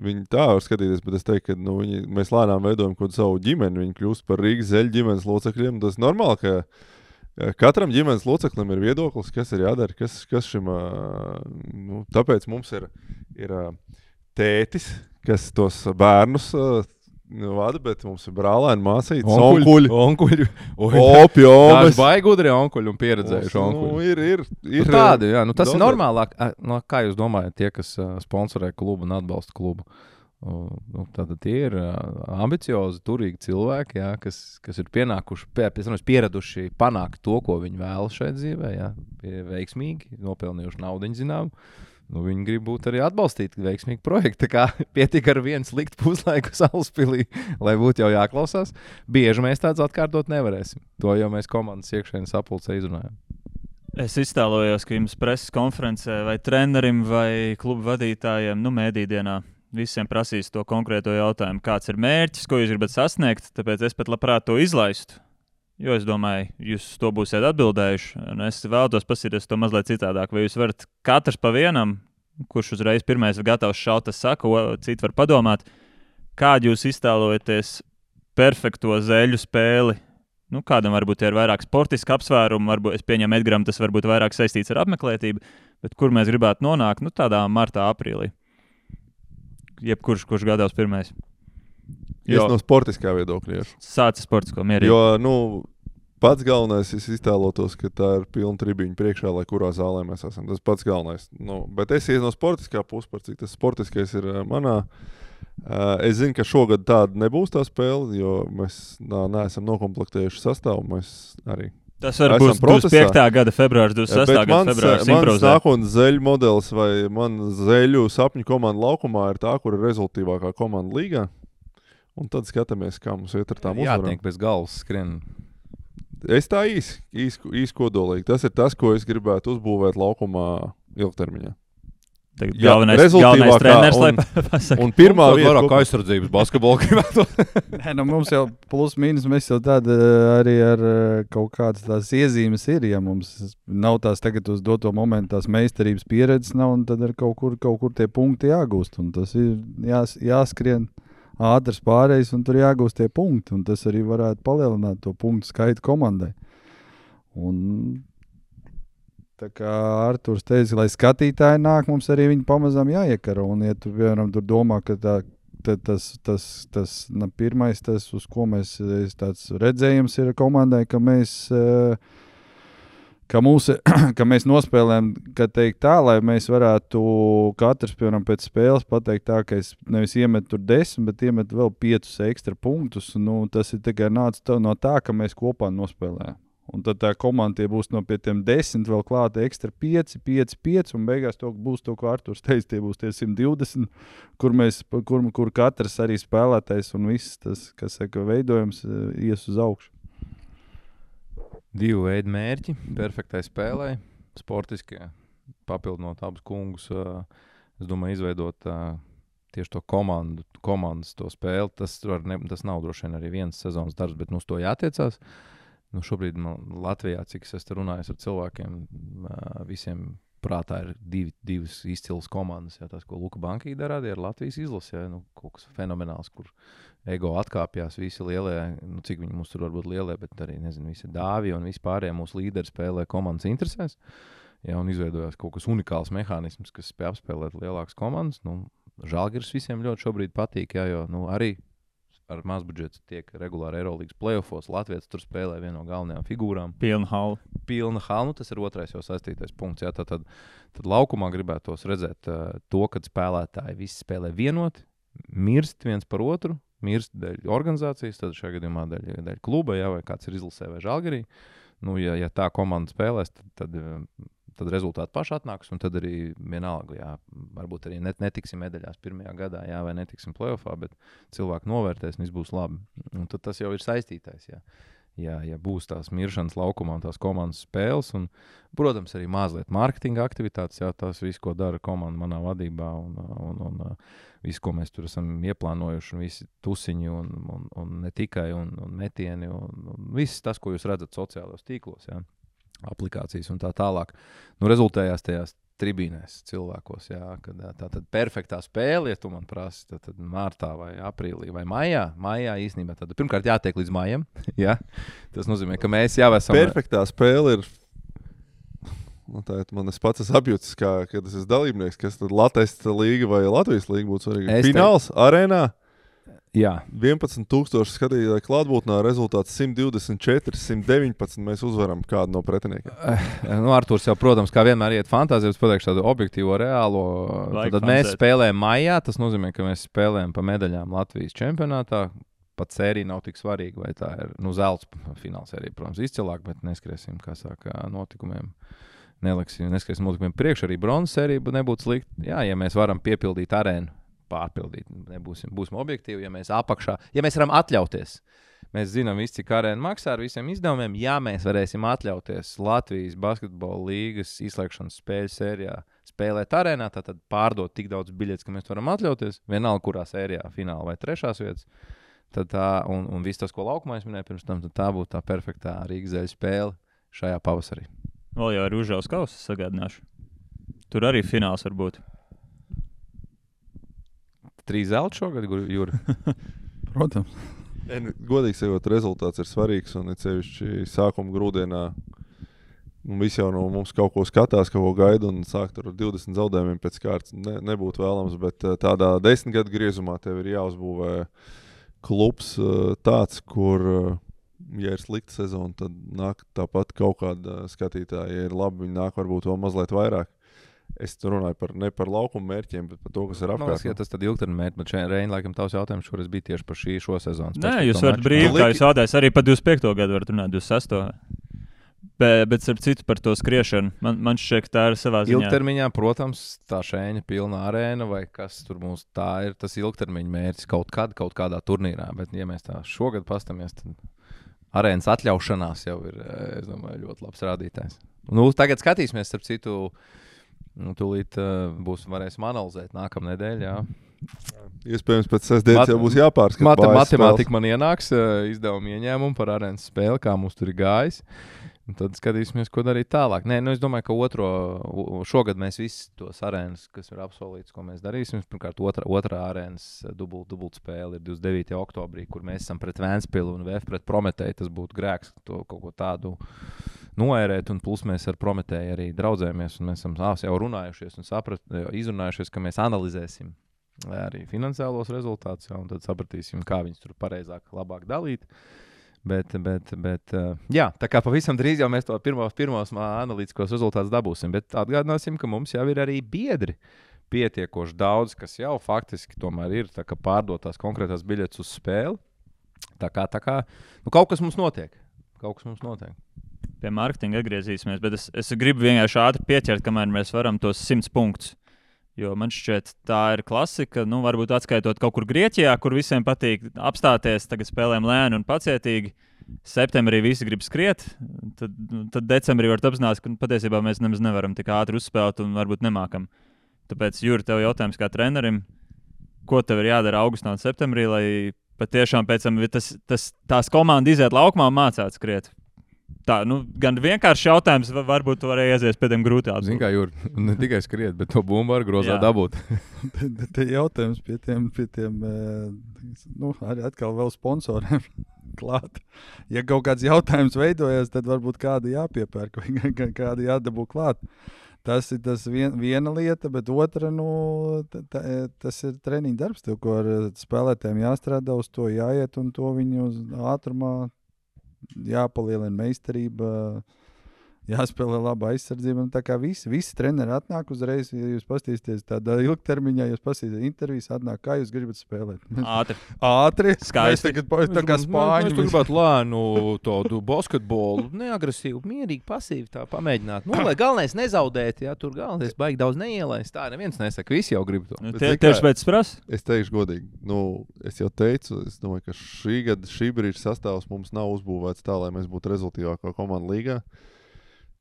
viņi tā var skatīties, bet es teiktu, ka mēs lēnām veidojam kaut savu ģimeni, viņi kļūst par Rīgas Zeļu ģimenes locekļiem. Tas normāli, ka katram ģimenes loceklim ir viedoklis, kas ir jādara, kas šim, tāpēc mums ir tētis, kas tos bērnus vada, bet mums ir brālēni, māsītes, onkuļi. Opjomas. Baigi gudri onkuļi un pieredzējuši onkuļi. Ir tādi, jā. Tas ir normālāk. Kā jūs domājat, tie, kas sponsorē klubu un atbalsta klubu? Tātad tie ir ambiciozi, turīgi cilvēki, jā, kas ir pieraduši panākt to, ko viņi vēlas šeit dzīvē, jā, veiksmīgi, nopelnījuši naudiņu zinām. Viņi grib būt arī atbalstīti veiksmīgi projekti. Tā kā pietika ar vienu sliktu puslaiku Salaspilī, lai būtu jau jāklausās. Bieži mēs tāds atkārtot nevarēsim. To jau mēs komandas iekšēnes sapulcē izrunājam. Es iztēlojos, ka jums preses konferencē vai trenerim vai klubu vadītājiem, mēdīdienā visiem prasīs to konkrēto jautājumu, kāds ir mērķis, ko jūs gribat sasniegt, tāpēc es pat labprāt to izlaistu. Jo es domāju, jūs to būsiet atbildējuši. Un es vēlos paskatīties to mazliet citādāk. Vai jūs varat katrs pa vienam, kurš uzreiz pirmais ir gatavs šaut, tas saka, citi var padomāt, kādu jūs iztēlojaties perfekto zeļu spēli? Nu, kādam varbūt ir vairāk sportiski apsvērumi, varbūt es pieņemu Edgaram, tas varbūt vairāk saistīts ar apmeklētību, bet kur mēs gribētu nonākt, nu, tādā martā, aprīlī. Jebkurš, kurš gatavs pirmais. Es no sportiskā viedokļa. Sācis sportisko mierīgi. Jo, pats galvenais, es iztēlotos, ka tā ir pilna tribīņa priekšā, lai kurā zālē mēs esam. Tas pats galvenais. Bet es ies no sportiskā puses, par cik tas sportiskais ir manā. Es zinu, ka šogad tāda nebūs tā spēle, jo mēs neesam nokomplektējuši sastāvu. Mēs arī tas var būt 25. gada februārs, 26. gada februārs. Mans nākotnes zeļu modelis vai man zeļu sapņu komanda laukumā ir tā, kur ir rezultīvākā komanda līgā. Un tad skatāmies, kā mums iet ar tām uzvarām. Jātiek bez galvas skrien. Es tā īsi kodolīgi. Tas ir tas, ko es gribētu uzbūvēt laukumā ilgtermiņā. Galvenais treneris, lai pasaka. Un pirmā vieta, vairāk aizsardzības basketbolu gribētu. Nē, mums jau plus mīnus, mēs jau tāda arī ar kaut kādas tās iezīmes ir, ja mums nav tās tagad uz doto momentu tās meistarības pieredzes nav, un tad ir kaut kur tie punkti jāgūst, un tas ir jāskrien ātrs pārējais, un tur jāgūst tie punkti, un tas arī varētu palielināt to punktu skaitu komandai. Un tā kā Arturs teica, lai skatītāji nāk, mums arī viņi pamazām jāiekaro. Un, ja tu, piemēram, tur domā, ka tas pirmais, tas, uz ko mēs tāds redzējums ir komandai, ka mēs nospēlējam, ka teikt tā, lai mēs varētu katrs, piemēram, pēc spēles pateikt tā, ka es nevis iemetu tur 10, bet iemetu vēl 5 ekstra punktus. Nu, tas ir tikai nāca no tā, ka mēs kopā nospēlējam. Un tad tā komanda būs no pie tiem 10 vēl klāta ekstra 5, un beigās būs to, ko Arturs teica, tie būs tie 120, kur katrs arī spēlētais un viss tas, kas saka, veidojums ies uz augšu. 2 veidu mērķi, perfektai spēlē, sportiskie, papildinot abus kungus, es domāju, izveidot tieši to komandas to spēli. Tas nav droši vien arī viens sezonas darbs, bet uz to jātiecās. Nu, šobrīd Latvijā, cik es esmu runājis ar cilvēkiem, visiem prātā ir divas izcilas komandas. Jā, tās, ko Luka Bankī darāja, ir Latvijas izlase. Jā, nu, kaut kas fenomenāls, kur ego atkāpjās visi lielie, nu, cik viņi mums tur varbūt lielie, bet arī, nezinu, visi dāvi un vispārējie mūsu līderi spēlē komandas interesēs. Jā, un izveidojās kaut kas unikāls mehānisms, kas spēj apspēlēt lielākas komandas. Nu, Žalgiris visiem ļoti šobrīd patīk, jā, jo arī ar mazbudžetu tiek regulāri Eirolīgas playoffos. Latvijas tur spēlē vienu no galvenajām figūrām. Pilna hala. Nu, tas ir otrais jau saistītais punkts. Jā, tad laukumā gribētos redzēt to, kad spēlētāji visi spēlē vienoti, mirst viens par otru, mirst dēļ organizācijas, tad šajā gadījumā dēļ kluba, jā, vai kāds ir izlasē vai Žalgirī. Nu, ja tā komanda spēlēs, tad rezultāti paši atnāks, un tad arī vienalga, jā, varbūt arī netiksim medaļās pirmajā gadā, jā, vai netiksim playoffā, bet cilvēki novērtēs, un viss būs labi. Un tad tas jau ir saistītais, jā. Ja būs tās miršanas laukumā un tās komandas spēles, un, protams, arī mazliet mārketinga aktivitātes, jā, tās viss, ko dara komanda manā vadībā, un viss, ko mēs tur esam ieplānojuši, un visi tusiņi, un ne tikai, un metieni, un viss tas, ko jūs redzat sociālos tīklos, jā. Aplikācijas un tā tālāk. Nu, rezultējās tajās tribīnēs cilvēkos, jā, kad tā tad perfektā spēle, ja tu man prasi, tad martā vai aprīlī vai maijā īstenībā tad pirmkārt jātiek līdz maijam, jā. Tas nozīmē, ka mēs jau esam... Perfektā spēle ir, nu tā man es pats esmu apjūtis, kad es esmu dalībnieks, kas tad Latvijas līga vai Latvijas līga būtu svarīgi. Fināls, arēnā. Jā. 11,000 skatītāju klātbūtnē, rezultāts 124, 119. Mēs uzvaram kādu no pretiniekiem. Nu, Arturs jau, protams, kā vienmēr iet fantāzijas, pateikšu tādu objektīvo, reālo. Tad mēs spēlējam maijā, tas nozīmē, ka mēs spēlējam pa medaļām Latvijas čempionātā. Pat sērija nav tik svarīga, vai tā ir, nu, zelts fināls sērija, protams, izcilāk, bet neskriesim, kā saka, notikumiem. Neskriesim notikumiem priekš, arī bronzas sērija nebūtu slikta. Jā, ja mēs varam piepildīt arēnu, pārpildīt. Būsim objektīvi, ja mēs apakšā, ja mēs varam atļauties. Mēs zinām visi, cik arēna maksā ar visiem izdevumiem. Ja mēs varēsim atļauties Latvijas basketbola līgas izslēgšanas spēļu sērijā spēlēt arēnā, tad pārdot tik daudz biļetes, ka mēs varam atļauties. Vienalga, kurā sērijā, fināla vai trešās vietas. Tad tā, un viss tas, ko laukumā es minēju pirms tam, tad tā būtu tā perfektā Rīgas Zeļu spēle šajā pavasarī. Vēl jau ar Užaus kausu sagādināšu. Tur arī fināls var būt. 3 zelta šogad, Juri? Protams. Godīgi sakot, rezultāts ir svarīgs un it sevišķi sākuma grūdienā. Visi jau no mums kaut ko skatās, kaut ko gaida un sākt ar 20 zaudējumiem pēc kārtas nebūtu vēlams, bet tādā 10 gadu griezumā tev ir jāuzbūvē klubs tāds, kur, ja ir slikta sezona, tad nāk tāpat kaut kāda skatītāja. Ja ir labi, viņi nāk varbūt vēl mazliet vairāk. Es runāju ne par laukuma mērķiem, bet par to, kas ir apkārt. Ja tas tad ilgtermiņa mērķi, bet šeit Reina, laikam, tavs jautājums šoreiz bija tieši par šo sezonu. Nē, jūs varat brīvi, kā jūs jautājat, arī par 25. gadu varat runāt, 26. Bet ar citu par to skriešanu, man šķiet, ka tā ir savā ziņā. Ilgtermiņā, protams, tā šēņa pilna arēna vai kas tur mums tā ir, tas ilgtermiņa mērķis kaut kādā turnīrā, bet ja mēs tā šogad pastamies, tad arēnas atļaušanās jau ir, es domāju, ļoti labs rādītājs. Tagad skatīsimies, starp citu, tūlīt varēsim analizēt nākamā nedēļa. Jā. Iespējams, pēc sestdienas jau būs jāpārskata. Matemātika man ienāks, izdevuma ieņēmumu par arēnas spēli, kā mums tur ir gājis. Un tad skatīsimies, ko darīt tālāk. Nē, es domāju, ka šogad mēs visi tos arēnas, kas ir apsolīts, ko mēs darīsim. Pirmkārt, otrā arēnas dubult spēle ir 29. oktobrī, kur mēs esam pret Vēnspilu un VF pret Prometēju. Tas būtu grēks to kaut ko tādu noērēt, un plus mēs ar Prometēju arī draudzējamies, un mēs esam jau runājušies un izrunājušies, ka mēs analizēsim arī finansiālos rezultātus, un tad sapratīsim, kā viņus tur pareizāk, labāk dalīt. Bet jā, tā kā pavisam drīz jau mēs to pirmos analītiskos rezultātus dabūsim, bet atgādināsim, ka mums jau ir arī biedri pietiekoši daudz, kas jau faktiski tomēr ir tā kā pārdotās konkrētās biļetes uz spēli. Tā kā kaut kas mums notiek. Pie mārketinga atgriezīsimies, bet es gribu vienkārši ātri pieķert, kamēr mēs varam tos 100 punktus. Jo man šķiet, tā ir klasika. Varbūt atskaitot kaut kur Grieķijā, kur visiem patīk apstāties, tagad spēlēm lēni un pacietīgi. Septembrī visi grib skriet, tad decembrī var apzināties, ka patiesībā mēs nemaz nevaram tik ātri uzspēlēt un varbūt nemākam. Tāpēc, Juri, tev jautājums kā trenerim, ko tev ir jādara augustā un septembrī, lai patiešām pēc tam tās komandas iziet laukumā un mācāt skriet? Tā, gan vienkārši jautājums, varbūt tu varēji aizies pie tiem grūtām. Zini, kā Juri, ne tikai skriet, bet to bumbu var grozā dabūt. Te jautājums pie tiem arī atkal vēl sponsoriem klāt. Ja kaut kāds jautājums veidojas, tad varbūt kādu jāpiepērk vai kādu jādabū klāt. Tas ir viena lieta, bet otra, tas ir treniņa darbs, tev, ko ar spēlētājiem jāstrādā, uz to jāiet un to viņu uz ātrumā jāpalielina meistarība, jāspēlē laba aizsardzība. Tā kā visi treneri atnāk uzreiz, ja jūs paskatīsieties tādā ilgtermiņā, jūs paskatīsieties intervijas, atnāk, kā jūs gribat spēlēt. Ātri. Skaisti. Tā kā spāņi. Mēs gribētu lēnu tādu basketbolu, neagresīvu, mierīgi, pasīvi tā pamēģināt. Lai galvenais nezaudēt, ja tur galvenais baigi daudz neielaist. Tā neviens nesaka, visi jau grib to. Tieši pēc prasa? Es teikšu godīgi, es jau teicu, es domāju, ka šī brīža sastāvs mums nav uzbūvēts tā, lai mēs būtu rezultīvākā komanda līgā.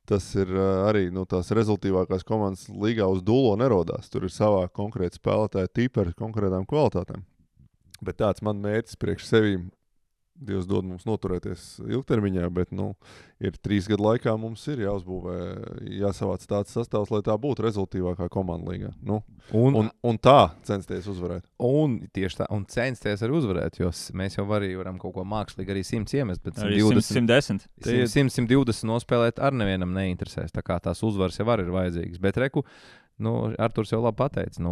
Tas ir arī tās rezultīvākās komandas līgā uz dūlo nerodās. Tur ir savā konkrēta spēlētāja tipa ar konkrētām kvalitātēm. Bet tāds man mērķis priekš sevīm, Dievs dod mums noturēties ilgtermiņā, bet ir 3 gadu laikā mums ir jāuzbūvē, jāsavāc tāds sastāvs, lai tā būtu rezultīvākā komanda līgā. Un tā censties uzvarēt. Un tieši tā, un censties arī uzvarēt, jo mēs jau varam kaut ko mākslīgi arī 100 iemest, bet arī 110. 120 nospēlēt ar nevienam neinteresēs, tā kā tās uzvaras jau ir vajadzīgas. Bet reku, Arturs jau labi pateica,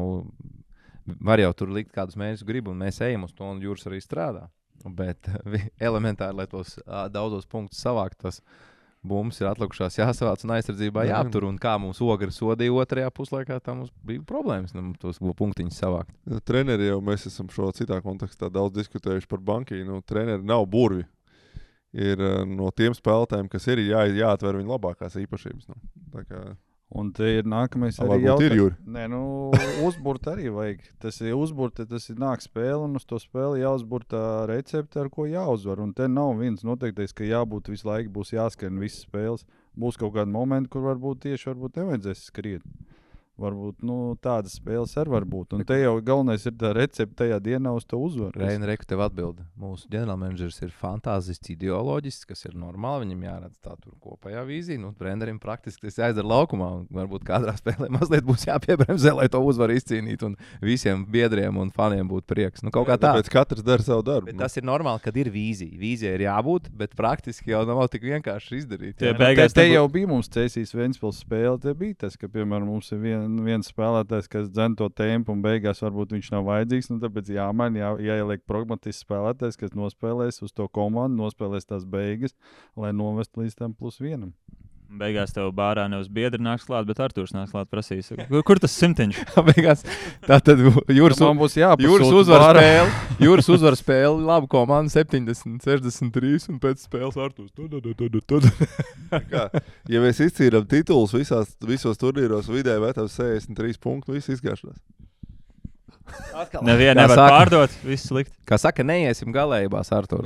var jau tur likt kādus mērķus gribu, un mēs ejam uz to, un Jūras arī strādā. Bet elementāri, lai tos daudzos punktus savākt, tas bumbas ir atlikušās jāsavāc un aizsardzībā jāaptur. Un kā mums Ogri sodīja otrajā puslaikā, tā mums bija problēmas tos punktiņus savākt. Treneri jau mēs esam šo citā kontekstā daudz diskutējuši par bankiju. Treneri nav burvi. Ir no tiem spēlētājiem, kas ir jāatver viņu labākās īpašības. Tā kā... Un te ir nākamais arī jautājums. Nē, uzburt arī vajag. Tas ir uzburt, tas ir nāk spēle, un uz to spēli jāuzburt tā recepte, ar ko jāuzvar. Un te nav viens noteiktais, ka jābūt visu laiku, būs jāskrien visas spēles. Būs kaut kādi momenti, kur varbūt nevajadzēs skriet. Varbūt tādas spēles arī var būt. Un te jau galvenais ir tā recepte tajā dienā uz to uzvaru. Reina, reku tev atbildi. Mūsu ģenerālmenedžers ir fantāzists, ideoloģisks, kas ir normāli. Viņam jāredz tā tur kopējā vīzija. Trenerim praktiski tas jāizdara laukumā. Varbūt kādrā spēlē mazliet būs jāpiebremzē, lai to uzvaru izcīnītu. Un visiem biedriem un faniem būtu prieks. Kaut kā tā. Tāpēc katrs dara savu darbu. Bet tas ir normāli, kad ir vīzija. Vīzija ir jābūt, bet praktiski jau nav tik vienkārši izdarīt. Te jau bija mums Cēsīs Ventspils spēle. Te bija tas, ka, piemēram, mums ir viens spēlētājs, kas dzen to tempu un beigās varbūt viņš nav vajadzīgs. Tāpēc jāieliek pragmatisks spēlētājs, kas nospēlēs uz to komandu, nospēlēs tās beigas, lai novestu līdz tam +1. Beigās tev bārā nevis biedri nāks klāt, bet Artūrs nāks klāt prasīs. Kur tas 100? Beigās tā tad jūras uzvaras spēle, labu komandu 70, 63 un pēc spēles Artūrs. Ja mēs izcīnām titulus visos turnīros, vidēji metams 63 punktu, viss izgāšanās. Nevienu nevar pārdot, viss slikti. Kā saka, neiesim galējībās ar to.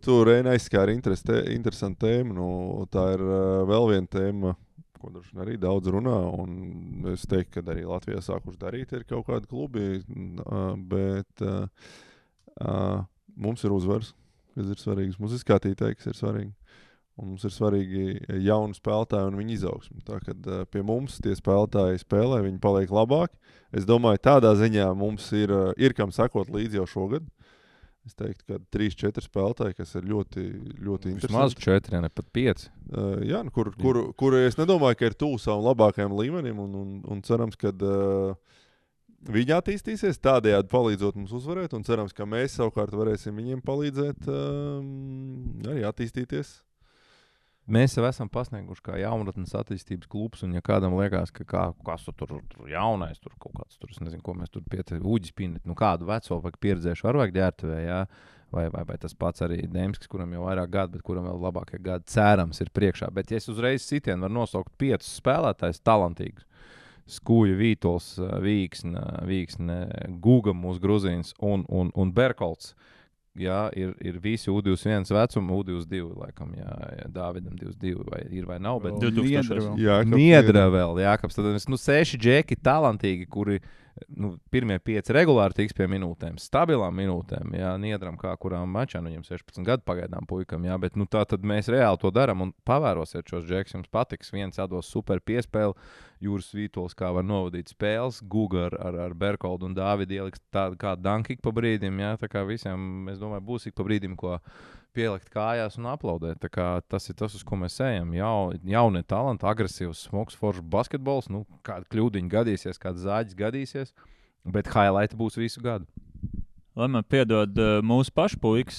Tu Reina aizskāri interesantu tēmu. Tā ir vēl viena tēma, ko droši arī daudz runā. Un es teiktu, ka arī Latvijā sākuši darīt ir kaut kādi klubi. Bet mums ir uzvaras, kas ir svarīgas. Mums ir skatītāji, kas ir svarīgi. Un mums ir svarīgi jauni spēlētāji un viņu izaugsmi. Tā kad pie mums tie spēlētāji spēlē, viņi paliek labāki. Es domāju, tādā ziņā mums ir kam sakot līdzi jau šogad. Es teiktu, ka 3-4 spēlētāji, kas ir ļoti, ļoti interesanti. Vismaz 4, ne pat 5. Jā, kur es nedomāju, ka ir tuvu savam labākajam līmenim un cerams, ka viņi attīstīsies, tādējādi palīdzot mums uzvarēt un cerams, ka mēs savukārt varēsim viņiem palīdzēt arī attīstīties. Mēs jau esam pasnieguši kā jaunatnes attīstības klubs, un ja kādam liekas, ka kas tur jaunais, tur kaut kāds, tur, es nezinu, ko mēs tur uģis pinēt, kādu veco vai pieredzējuši var vajag ģērtuvē, jā, vai tas pats arī Demskis, kuram jau vairāk gadu, bet kuram vēl labākie gadi cerams ir priekšā. Bet ja es uzreiz sitienu var nosaukt 5 spēlētājus talantīgus, Skuja, Vītols, Vīksne, Guga mūsu Gruzīns un Berkolts. Jā, ir visi U21 vecuma, U22 laikam, jā, Dāvidam 22 vai ir vai nav, bet 2000. Niedra vēl, Jākabs. Tad 6 džeki talantīgi, kuri pirmie 5 regulāri tiks pie minūtēm, stabilām minūtēm, jā, Niedram kā kurām mačā, viņam 16 gadu pagaidām puikam, jā, bet tā tad mēs reāli to daram un pavērosiet šos džekus, jums patiks, viens atdos super piespēli, Jūras Vītols kā var novadīt spēles, Guga ar Berkoldu un Dāvidu ieliks tādu kā dankik pa brīdim, jā, tā kā visiem, es domāju, būs ik pa brīdim, ko pielikt kājās un aplaudēt. Tā kā tas ir tas, uz ko mēs ejam. Jaunie talanti, agresīvs, smogs, foršs basketbols, kāda kļūdiņa gadīsies, kāda zāģis gadīsies, bet highlighti būs visu gadu. Lai man piedod mūsu pašu puikas,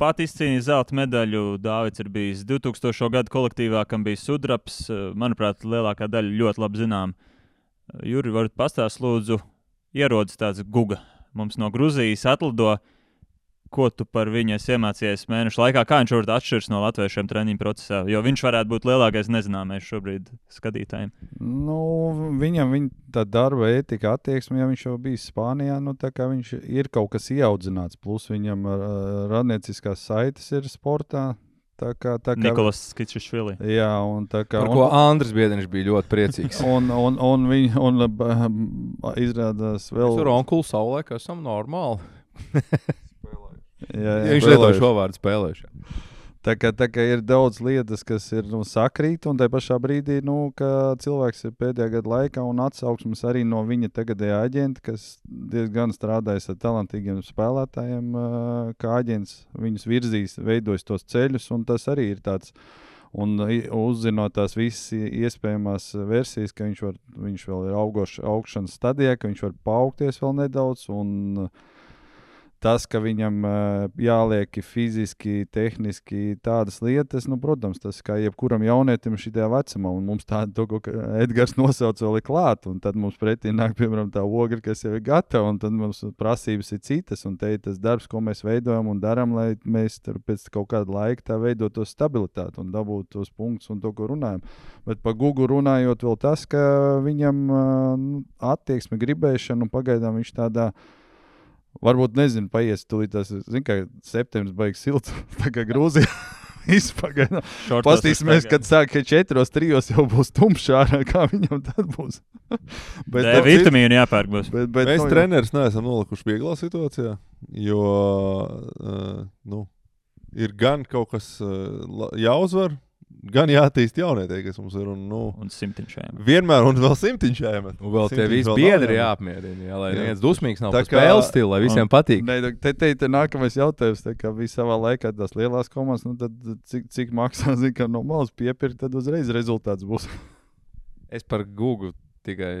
pat izcīnīja zelta medaļu, Dāvids ir bijis 2000. Gadu kolektīvā, kam bija sudrabs, manuprāt, lielākā daļa ļoti labi zinām. Juri, varat pastāst lūdzu, ierodas tāds Guga, mums no Gruzijas atlido. Ko tu par viņu esi iemācījies mēnešu laikā? Kā viņš varbūt atšķiras no latviešiem treniņu procesā? Jo viņš varētu būt lielākais nezināmais šobrīd skatītājiem. Viņam tā darba ētika attieksme, ja viņš jau bijis Spānijā, tā kā viņš ir kaut kas ieaudzināts. Plus viņam radnieciskās saites ir sportā. Nikolas Skičišvili. Jā, un tā kā... Par ko Andris Biedriņš bija ļoti priecīgs. un izrādās vēl... Mēs ar onkulu saulē, ka esam normāli. Jā, viņš lietoja šo vārdu spēlējuši. Tā kā ir daudz lietas, kas ir sakrīt, un tajā pašā brīdī, ka cilvēks ir pēdējā gada laikā un atsauksmes arī no viņa tagadējā aģenta, kas diezgan strādājas ar talantīgiem spēlētājiem, kā aģents viņus virzīs, veidojas tos ceļus, un tas arī ir tāds, un uzzinot tās visas iespējamās versijas, ka viņš vēl ir augšanas stadijā, ka viņš var paaugties vēl nedaudz, un tas, ka viņam jāliek fiziski, tehniski tādas lietas, protams, tas kā jebkuram jaunietim šitajā vecumā, un mums tādu, ko Edgars nosauc vēl ir klāt, un tad mums pretī nāk, piemēram, tā ogra, kas jau ir gatava, un tad mums prasības ir citas, un te ir tas darbs, ko mēs veidojam un daram, lai mēs pēc kaut kāda laika tā veidot to stabilitāti un dabūt tos punktus un to, ko runājam. Bet par Gugu runājot vēl tas, ka viņam attieksme, gribēšana, un pagaidām viņš tādā varbūt, nezinu, paies tūlīt tas, kā septembris baigs silts, tā kā Grūzijā. izpagaidām. Pastīsimies, kad sāk 4-3 jau būs tumšā ārā, kā viņam tad būs. Bet vitamīnu jāpērk būs. Bet mēs treneris neesam nolikuši vieglā situācijā, jo ir gan kaut kas jāuzvar, gan jātīst jaunietie, kas mums ir. Un simtiņšajiem. Vienmēr un vēl simtiņšajiem. Un vēl tie visi biedri jāapmierina, lai neviens dusmīgs nav par spēles stilu, lai visiem patīk. Te nākamais jautājums, tā kā bija savā laikā tās lielās komandas, tad cik maksā, ka no malas piepirkt, tad uzreiz rezultāts būs. Es par Google tikai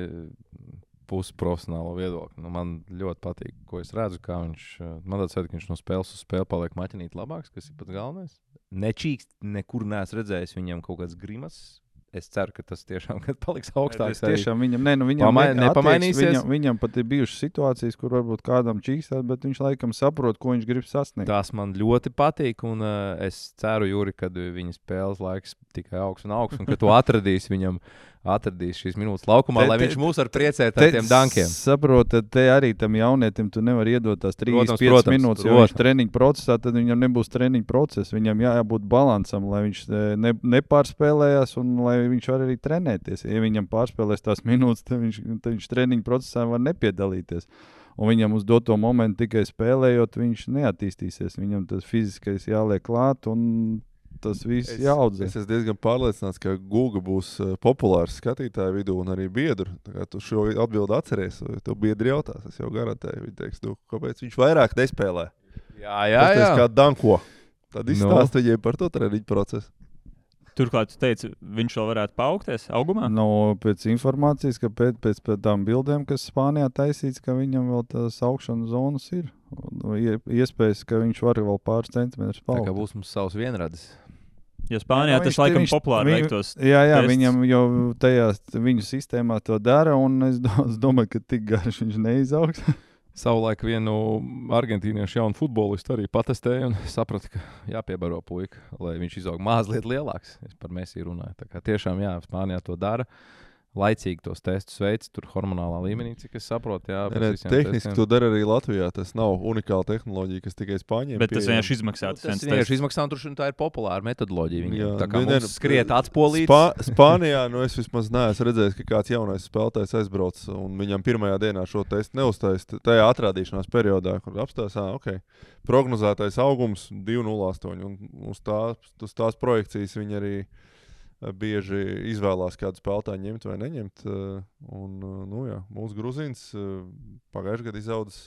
pusprofesionālo viedokli. Man ļoti patīk, ko es redzu, kā viņš, man tāds vajag, ka viņš no spēles uz spēli paliek maķinīt labāks, kas ir pats galvenais. Nečīkst, nekur neesmu redzējis viņam kaut kāds grimas. Es ceru, ka tas tiešām paliks augstāks. Tiešām viņam nepamainīsies. Viņam pat ir bijušas situācijas, kur varbūt kādam čīkstās, bet viņš laikam saprot, ko viņš grib sasniegt. Tas man ļoti patīk, un es ceru, Juri, kad viņa spēles laiks tikai augs, un ka tu atradīsi šīs minūtes laukumā, lai viņš mūs var priecēt ar tiem dankiem. Saprotat, te arī tam jaunietim tu nevar iedot tās 3-5 minūtes, jo viņš treniņu procesā, tad viņam nebūs treniņu process. Viņam jābūt balansam, lai viņš nepārspēlējās un lai viņš var arī trenēties. Ja viņam pārspēlēs tās minūtes, tad viņš treniņu procesā var nepiedalīties. Un viņam uz doto momentu tikai spēlējot, viņš neattīstīsies. Viņam tas fiziskais jāliek klāt un tas viss jāaudzē. Es esmu diezgan pārliecināts, ka Google būs populārs skatītāju vidū un arī biedru. Tā kā tu šo atbildi atceries, to biedri jautās, es jau garantēju. Viņi teiks, kāpēc viņš vairāk nespēlē? Jā. Kā danko. Tad izstāst viņiem par to treniņu procesu. Turklāt tu teici, viņš vēl varētu paaugties augumā? Pēc informācijas, ka pēc tām bildēm, kas Spānijā taisīts, ka viņam vēl tās augšanas zonas ir. Iespējas, ka viņš var vēl pāris centimetrus paaugt. Tā kā būs mums savs vienradis. Jo Spānijā tas laikam populāri veiktos. Jā, viņam jau tajā viņu sistēmā to dara, un es domāju, ka tik garš viņš neizaugs. Savulaik vienu argentīniešu jaunu futbolistu arī patestēju un sapratu, ka jāpiebaro puika, lai viņš izaug mazliet lielāks. Es par Messi runāju. Tā kā tiešām, jā, Spānijā to dara. Laicīgi tos testus veids, tur hormonālā līmenī, cik es saprotu. Jā, tehniski to dara arī Latvijā. Tas nav unikāla tehnoloģija, kas tikai Spāņiem bet tas vienkārši izmaksā. Tas vienkārši izmaksā, un tur tā ir populāra metodoloģija. Viņam tā kā mums skriet atspolīts. Spānijā, es vismaz neesmu redzējis, ka kāds jaunais spēlētājs aizbrauc un viņam pirmajā dienā šo testu neuztais tajā atrādīšanās periodā, kur apstās, prognozētais augums 2,08 un uz tās projekcijas viņi arī bieži izvēlās kādu spēlētāju ņemt vai neņemt. Mūsu Gruzīns pagājušajā gadā izaudzis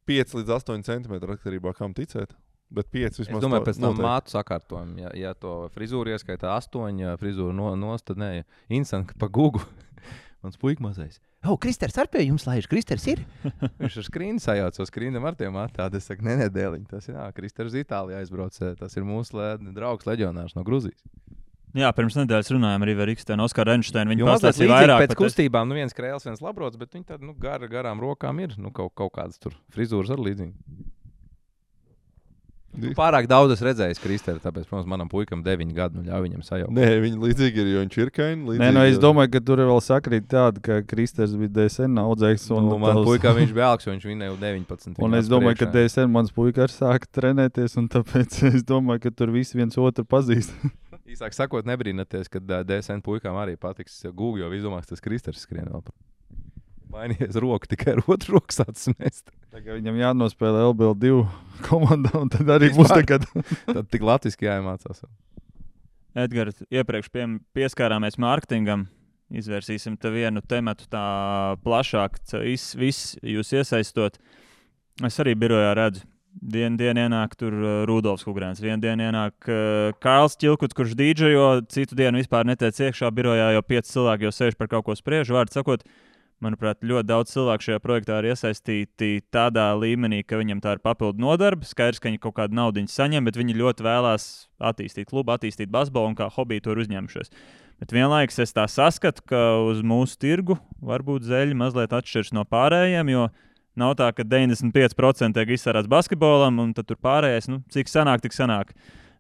5 līdz 8 centimetru atkarībā, kam ticēt. Bet 5 vismaz. Es domāju, pēc tam mātu sakārtojumu. Ja to frizūru ieskaitā 8, frizūru nost, tad nē, instant pa Google. Mans puika mazais. Kristers ar pie jums laiž, Kristers ir? Viņš ar skrīnu sajauc, skrīnam ar tiem attādi. Es saku, nedēliņ, tas ir, Kristers Itālijā aizbrauc. Tas ir mūsu draugs leģionārs no Gruzijas. Jā, pirms nedēļas runājām arī ar Ikstenu, Oskaru Enšteinu. Viņi pastāstīja vairāk. Pēc kustībām, viens krēls, viens labrots, bet viņi tad, garām rokām ir, kaut kādas tur frizūras ar līdzīgi. Pārāk daudz es redzēju Kristeri, tāpēc, protams, manam puikam 9 gadu, ļauj viņam sajaukt. Nē, viņi līdzīgi ir, jo viņš ir kaini. Es domāju, ka tur vēl sakrīt tāda, ka Kristers bija DSN audzēks. Man puikā viņš bija alks, jo viņš vinēja 19. Un es domāju, ka DSN mans puika arī sāka trenēties, un tāpēc es domāju, ka tur visi viens otru pazīst. Īsāk sakot, nebrīnaties, kad DSN puikām arī patiks Google, jo viss domās, tas Kristers skrien vēl par. Mainījies roku, tikai ar otru roku sācis mest. Tagad viņam jānospēlē LBL2 komandā, un tad arī būs tagad. Tad tik latviski jāiemācās. Edgars, iepriekš pieskārāmies mārketingam. Izvērsīsim te vienu tematu tā plašāk, viss jūs iesaistot. Es arī birojā redzu. Dienu ienāk tur Rudolfs Kugrēns, vienu dienu ienāk Kārls Čilkuts, kurš dīdžejo, citu dienu vispār netiec iekšā birojā, jo 5 cilvēki jau sēž par kaut ko spriež. Vārdu sakot, manuprāt, ļoti daudz cilvēku šajā projektā ir iesaistīti tādā līmenī, ka viņam tā ir papildu nodarbe. Skaidrs, ka viņi kaut kādu naudiņu saņem, bet viņi ļoti vēlās attīstīt klubu, attīstīt basbolu un kā hobiju to ir uzņemšies. Bet vienlaikus es tā saskatu, ka uz mūsu tirgu varbūt zeļi mazliet atšķiras no pārējiem, jo nav tā, ka 95% tiek izsērāts basketbolam, un tad tur pārējais, cik sanāk, tik sanāk.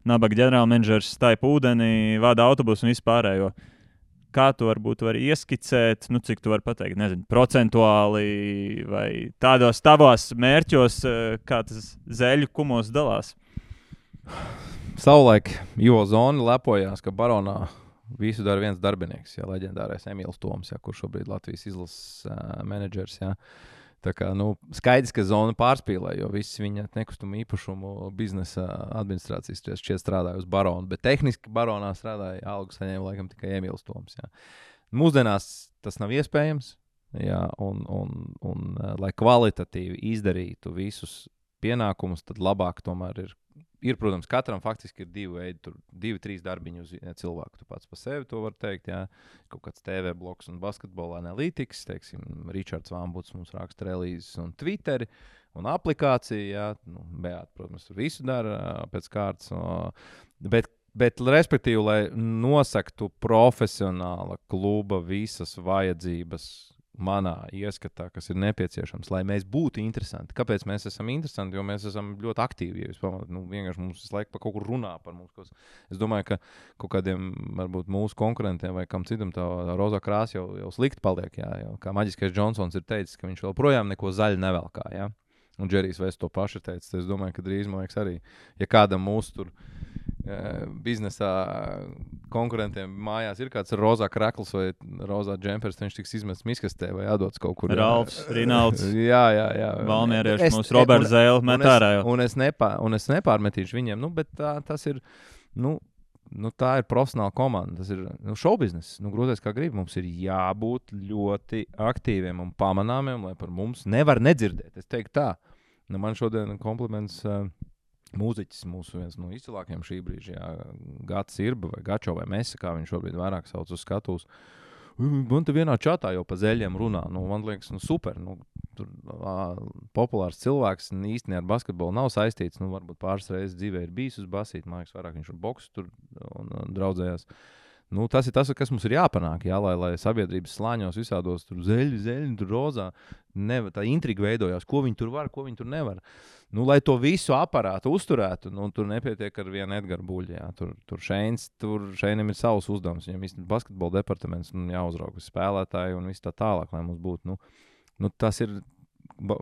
Nabaga ģenerālmenedžers staipa ūdeni, vada autobusu un visu pārējo. Kā tu varbūt vari ieskicēt, cik tu vari pateikt, nezinu, procentuāli vai tādos tavos mērķos, kā tas zeļu kumos dalās? savulaik Ivo Zoni lepojās, ka Baronā visu dara viens darbinieks, leģendārais Emīls Toms, kurš šobrīd Latvijas izlases menedžers. Tā kā, skaidrs, ka Zona pārspīlē, jo viss viņa nekustumu īpašumu biznesa administrācijas šķiet strādāja uz Baronu, bet tehniski Baronā strādāja algu saņēma laikam tikai Emīls Toms. Mūsdienās tas nav iespējams, un lai kvalitatīvi izdarītu visus pienākumus, tad labāk tomēr ir, protams, katram faktiski ir 2 veidi, 2-3 darbiņi uz cilvēku. Tu pats pa sevi to var teikt, kaut kāds TV bloks un basketbola analītikas, teiksim, Ričards Vambuts mums raksta relīzes un Twitteri un aplikācija, Beāta, protams, tur visu dara pēc kārtas, bet respektīvi, lai nosaktu profesionāla kluba visas vajadzības manā ieskatā, kas ir nepieciešams, lai mēs būtu interesanti. Kāpēc mēs esam interesanti? Jo mēs esam ļoti aktīvi. Ja jūs pamanāt, vienkārši mums visu laiku par kaut kur runā par mums. Es domāju, ka kaut kādiem, varbūt mūsu konkurentiem vai kam citam tā rozā krāsa jau slikti paliek. Kā Maģiskais Džonsons ir teicis, ka viņš vēl projām neko zaļu nevelkā. Un Džerijs Vests to pašu teica. Es domāju, ka drīz, man liekas, arī, ja kādam mūsu tur biznesā konkurentiem mājās ir kāds rozā krakls vai rozā džempers, viņš tiks izmests miskastē vai jādots kaut kur. Ralfs, Rinalds. Jā. Valmierieši, mūsu Roberts Zēle met ārā jau. Un es nepārmetīšu viņiem, bet tas ir, tā ir profesionāla komanda, tas ir šoubiznes. Grūtais kā grib, mums ir jābūt ļoti aktīviem un pamanāmiem, lai par mums nevar nedzirdēt. Es teiktu tā. Man šodien kompliments mūziķis, viens no izcilākajiem šī brīža, Gats Irba vai Gačo vai Mesa, kā viņš šobrīd vairāk sauc uz skatuves. Man te vienā čatā jau pa zeļiem runā. Man liekas, super. Tur populārs cilvēks īstenībā ar basketbolu nav saistīts. Varbūt pāris reizes dzīvē ir bijis uz basīt, mājas vairāk viņš ar boksu tur un draudzējās. Tas ir tas, kas mums ir jāpanāk, lai sabiedrības slāņos visādos tur zeļi, tur rozā. Tā intriga veidojās, ko viņi tur var, ko viņi tur nevar. Lai to visu aparātu uzturētu, tur nepietiek ar vienu Edgara Buļļu. Šeinam ir savs uzdevums. Viņam ir basketbola departaments, jāuzrauga spēlētāji un viss tā tālāk, lai mums būtu. Tas ir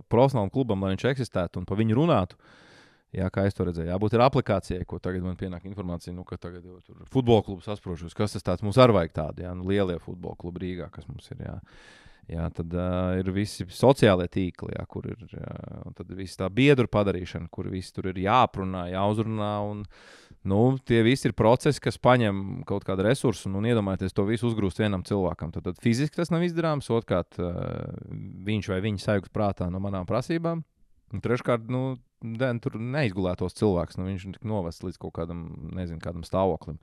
profesionālam klubam, lai viņš eksistētu un pa viņu runātu. Kā es to redzēju, jābūt ir aplikācijai, ko tagad man pienāk informācija, ka tagad jau tur futbola klubs asprošos, kas tas tāds mums arī vajag tādi, lielie futbola klubi Rīgā, kas mums ir, tad ir visi sociālie tīkli, kur ir, un tad ir visi tā biedru padarīšana, kur visi tur ir jāprunā, jāuzrunā, un tie visi ir procesi, kas paņem kaut kādu resursu, un iedomājieties to visu uzgrūst vienam cilvēkam. Tad fiziski tas nav izdarāms, otrkārt viņš vai viņa sajūgs prātā no manām prasībām, un treškārt, tur neizgulētos cilvēks, viņš tik novests līdz kaut kādam stāvoklim.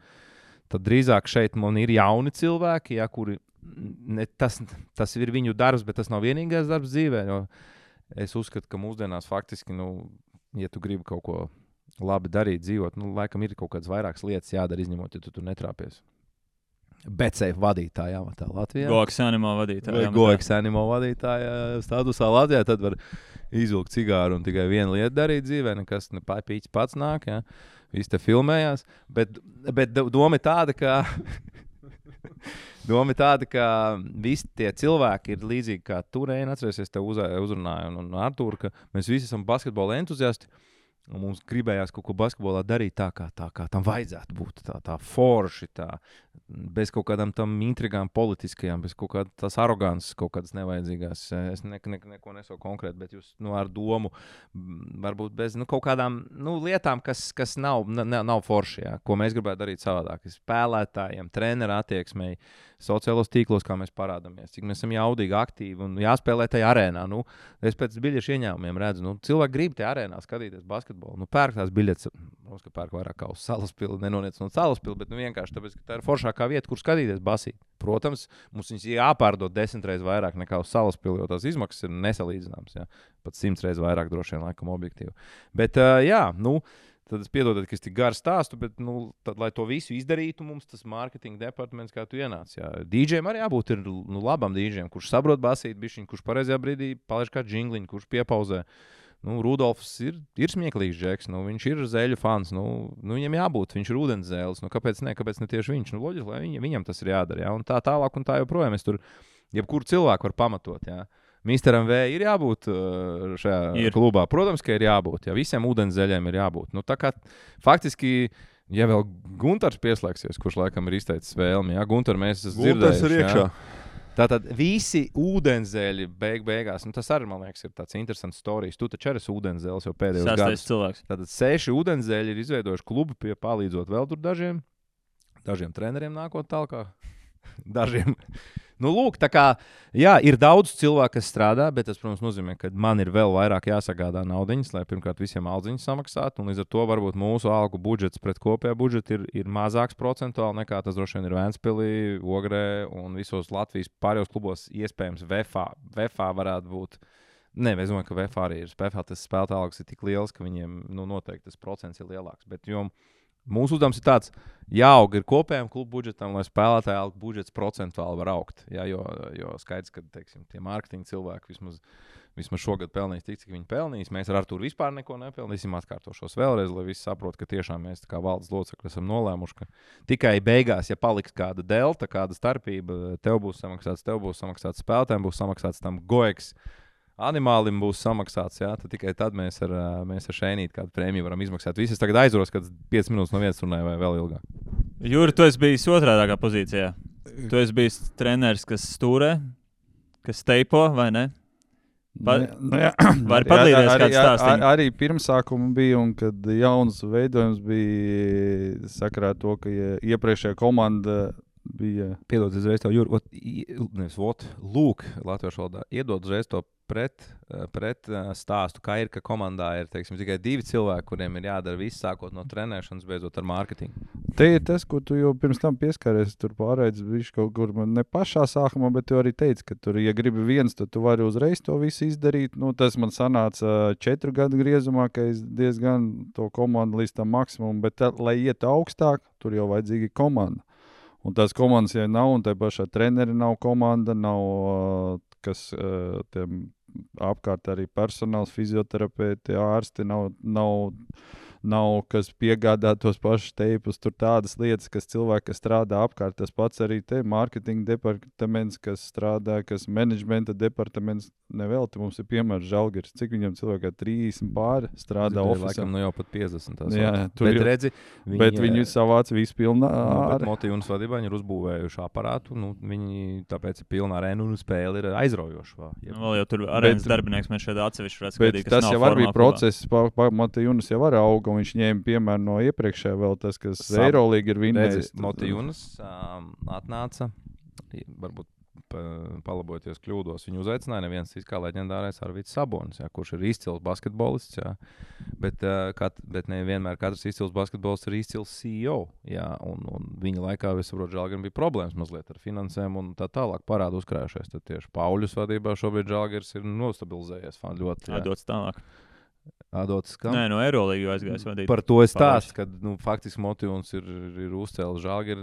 Tad drīzāk šeit man ir jauni cilvēki, kuri, tas ir viņu darbs, bet tas nav vienīgais darbs dzīvē, jo es uzskatu, ka mūsdienās faktiski, ja tu gribi kaut ko labi darīt, dzīvot, laikam ir kaut kādas vairākas lietas jādara, izņemot, ja tu tur netrāpies. BetSafe vadītāja amatā Latvijā. Goeks Animo vadītāja. Goeks Animo vadītāja statusā Latvijā, tad var izvilkt cigāru un tikai vienu lietu darīt dzīvē, nekas pīķis pats nāk, viss te filmējās, bet doma ir tāda, ka visi tie cilvēki ir līdzīgi kā tu, Reina, atcerēsies, tev uzrunāja un Artūru, ka mēs visi esam basketbola entuziasti, un mums gribējās kaut ko basketbolā darīt tā, kā tam vajadzētu būt, tā forši, bez kaut kādām tam intrigām politiskajām, bez kaut kādas tās arogances, kaut kādas nevajadzīgās. Es neko nesaku konkrēti, bet jūs ar domu, varbūt bez kaut kādām lietām, kas nav forši, ko mēs gribētu darīt savādāk. Spēlētājiem, treneru attieksmei, sociālos tīklos, kā mēs parādāmies, cik mēs esam jaudīgi, aktīvi un jāspēlē tajā arēnā. Es pēc biļešu ieņēmumiem redzu, cilvēki grib tajā arēnā skatīties basketbolu. Pērk tās biļetes, mums, ka pērk vairāk kā uz Salaspili, nenoniec no Salaspili, bet vienkārši tāpēc, ka tā ir foršākā vieta, kur skatīties basīt. Protams, mums viņas jāpārdod 10 reizes vairāk nekā uz Salaspili, jo tās izmaksas ir nesalīdzināmas, pat 100 reizes vairāk droši vien laikam objektīvi. Bet, tad es piedodat, ka es tik garu stāstu, bet, tad, lai to visu izdarītu, mums tas marketinga departaments, kā tu ienāc. DJiem arī jābūt ir labam DJiem, kurš saprot basīt bišķiņ, kurš pareizajā brīdī palaiž kā džingliņu, kurš piepauzē. Rudolfs ir smieklīgs džeks, viņš ir zeļu fans, viņam jābūt, viņš ir ūdens zēles, kāpēc ne tieši viņš? Loģiski, lai viņam tas ir jādara, un tā tālāk un tā joprojām. Es tur jebkuru cilvēku var pamatot, Misteram V ir jābūt šajā klubā. Protams, ka ir jābūt. Visiem ūdenszeļiem ir jābūt. Tā kā faktiski Ja vēl Guntars pieslēgsies, kurš laikam ir izteicis vēlmi, jā, Guntar, mēs esam Guntars ir dzirdējuši. iekšā. Tātad visi ūdenzēļi beigās, tas arī, man liekas, ir tāds interesants stāsts. Tu taču esi ūdenzēlis jau pēdējos gados. Cilvēks. Tātad 6 ūdenzēļi ir izveidojuši klubu, palīdzot vēl tur dažiem treneriem nākot tālāk. Dažiem. Nu, lūk, tā kā, jā, ir daudz cilvēku, kas strādā, bet tas, protams, nozīmē, ka man ir vēl vairāk jāsagādā naudiņas, lai pirmkārt visiem aldziņas samaksātu, un līdz ar to varbūt mūsu algu budžets pret kopējā budžetu ir mazāks procentuāli nekā tas droši vien ir Ventspilī, Ogrē un visos Latvijas pārējos klubos iespējams VFA varētu būt. Nē, es domāju, ka VFA arī ir. VFA tas spēlētāju algas ir tik liels, ka viņiem noteikti tas procents ir lielāks. Bet mūsu uzdevums ir tāds, jāaug ir kopējam klubu budžetam, lai spēlētāju algu budžets procentuāli var augt. Jā, jo skaidrs, ka teiksim, tie mārketinga cilvēki vismaz šogad pelnīs tik, cik viņi pelnīs. Mēs ar Arturu vispār neko nepelnīsim. Atkārtošos vēlreiz, lai visi saprot, ka tiešām mēs kā valdes locekļi esam nolēmuši, ka tikai beigās, ja paliks kāda delta, kāda starpība, tev būs samaksāts spēlētājiem, būs samaksāts tam goeks. Animālim būs samaksāts, jā, tad tikai tad mēs ar Šeinīti kādu prēmiju varam izmaksāt. Visi es tagad aizvaros, kad 5 minūtes no vietas runāju vai vēl ilgāk. Jūri, tu esi bijis otrādākā pozīcijā. Tu esi bijis treneris, kas stūrē, kas teipo, vai ne? Vari padalīties kāds stāstiņu? Arī pirmsākuma bija, un kad jauns veidojums bija sakarā to, ka iepriekšējā komanda bija... Piedod uzreiz tev, Jūri, lūk, latviešu valodā, iedod uzreiz to pret stāstu, kā ir, ka komandā ir, teiksim, tikai 2 cilvēki, kuriem ir jādara viss, sākot no trenēšanas, beidzot ar mārketingu. Te ir tas, ko tu jau pirms tam pieskaries, tur pārēdz viņš kaut kur ne pašā sākumā, bet tu arī teici, ka tur, ja gribi viens, tad tu vari uzreiz to visu izdarīt. Nu, tas man sanāca 4 gadu griezumā, ka es diezgan to komandu līdz tam maksimum, bet lai iet augstāk, tur jau vajadzīga komanda. Un tās komandas, ja nav, un tai pašā treneri nav komanda, nav kas tiem apkārt arī personāls, fizioterapeiti, ārsti, nav kas piegādā tos pašus teipus, tur tādas lietas, kas cilvēki, kas strādā apkārt, tas pats arī te mārketinga departaments, kas strādā, kas menedžmenta departaments, nevelti mums ir piemērs Žalgiris, cik viņam cilvēkā 30 pāri strādā ofisā. Laikam jau pat 50. Jā, bet redzi, viņi savāc visu pilnā bet Motijunas vadībā viņi ir uzbūvējuši aparātu, viņi tāpēc ir pilnā arēna un spēle ir aizraujoša. Vēl jau tur arēnas darbinieks mēs šeit atsevišķi redz skatīt, kas nav formā. Bet tas jau arī bija process, Motijunas jau var auga, un viņš ņēma piemēru no iepriekšējā vēl tas, kas Eirolīga ir vinnējis. Motijunas atnāca, varbūt palabojoties kļūdos, viņu uzaicināja neviens kā leģendārais Arvids Sabonis, jā, kurš ir izcils basketbolists, jā. Bet ne vienmēr katrs izcils basketbolists ir izcils CEO, jā, un viņa laikā, es saprotu, Žalgirim bija problēmas mazliet ar finansēm un tā tālāk parādu uzkrājušies, tad tieši Pauļus vadībā šobrīd Žalgirs ir nostabilizējies ļoti. Dots tālāk. Adots, nē, no Eirolīgu aizgājis vadīt. Par to es stāstu, ka faktiski Motijuns ir uzcēlis Žalgiri.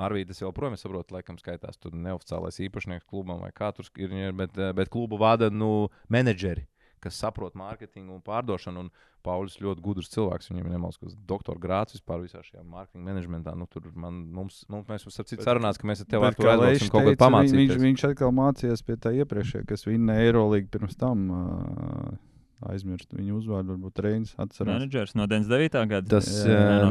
Arvīdas jau prom, es saprotu, laikam skaitās tur neoficiālais īpašnieks klubam vai kā tur ir, bet klubu vada menedžeri, kas saprot mārketingu un pārdošanu. Un Pauļus ļoti gudrs cilvēks, viņam ir nemalskas doktora grāds vispār visā šajā mārketinga menedžmentā. Tur mēs mums ar citu sarunāts, ka mēs ar tevi Artur aizdosim kaut ko pamācīties. Viņš atkal mācījās pie tā iepriekšējā, kas vinna Eirolīgu pirms tam. Aizmirst viņu uzvārdu, varbūt Reinis atcerās. Menedžers no 99. gada. Tas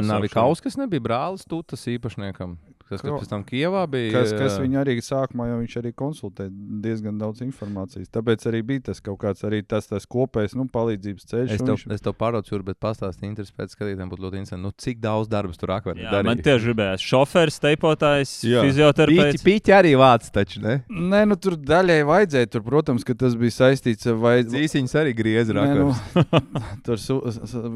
Navikauskas nebija brālis Tutas īpašniekam, kas pēc tam Kijevā bija. Kas viņu arī sākumā, jo viņš arī konsultēja diezgan daudz informācijas. Tāpēc arī bija tas kaut kāds arī tas kopējs palīdzības ceļš. Es tev pārdodu, Jūri, bet pastāstīju interesi pēc skatītājiem būtu ļoti interesanti. Cik daudz darbus tur akveri darīja? Man tieši gribējās šoferis, teipotājs, fizioterapeits. Pīķi arī vāc taču, ne? Nē, tur daļai vajadzēja. Tur, protams, ka tas bija saistīts ar Dzīsiņas arī griezi. Tur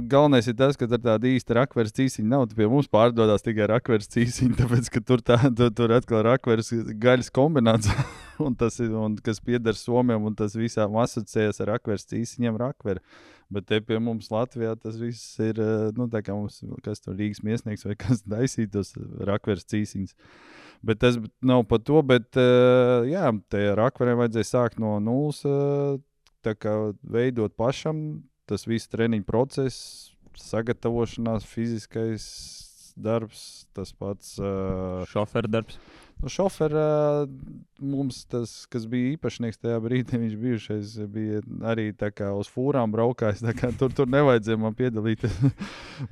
galvenais ir tas, ka tur tāda īsta rakveres cīsiņa nav. Pie mums pārdodās tikai rakveres cīsiņa, tāpēc, ka tur atkal rakveres gaļas kombinācija, un kas pieder Somijam, un tas visām asociējas ar rakveres cīsiņiem rakveri. Bet te pie mums Latvijā tas viss ir, tā kā mums, kas tur Rīgas miesnieks vai kas daisītos rakveres cīsiņas. Bet tas nav par to, bet jā, te rakveriem vajadzēja sākt no nulles, tā kā veidot pašam, tas viss treniņu process, sagatavošanās, fiziskais darbs, tas pats šoferu darbs. Šoferā mums tas, kas bija īpašnieks tajā brīdī, viņš bijušais bija arī tā kā uz fūrām braukājis, tā kā tur nevajadzēja man piedalīties.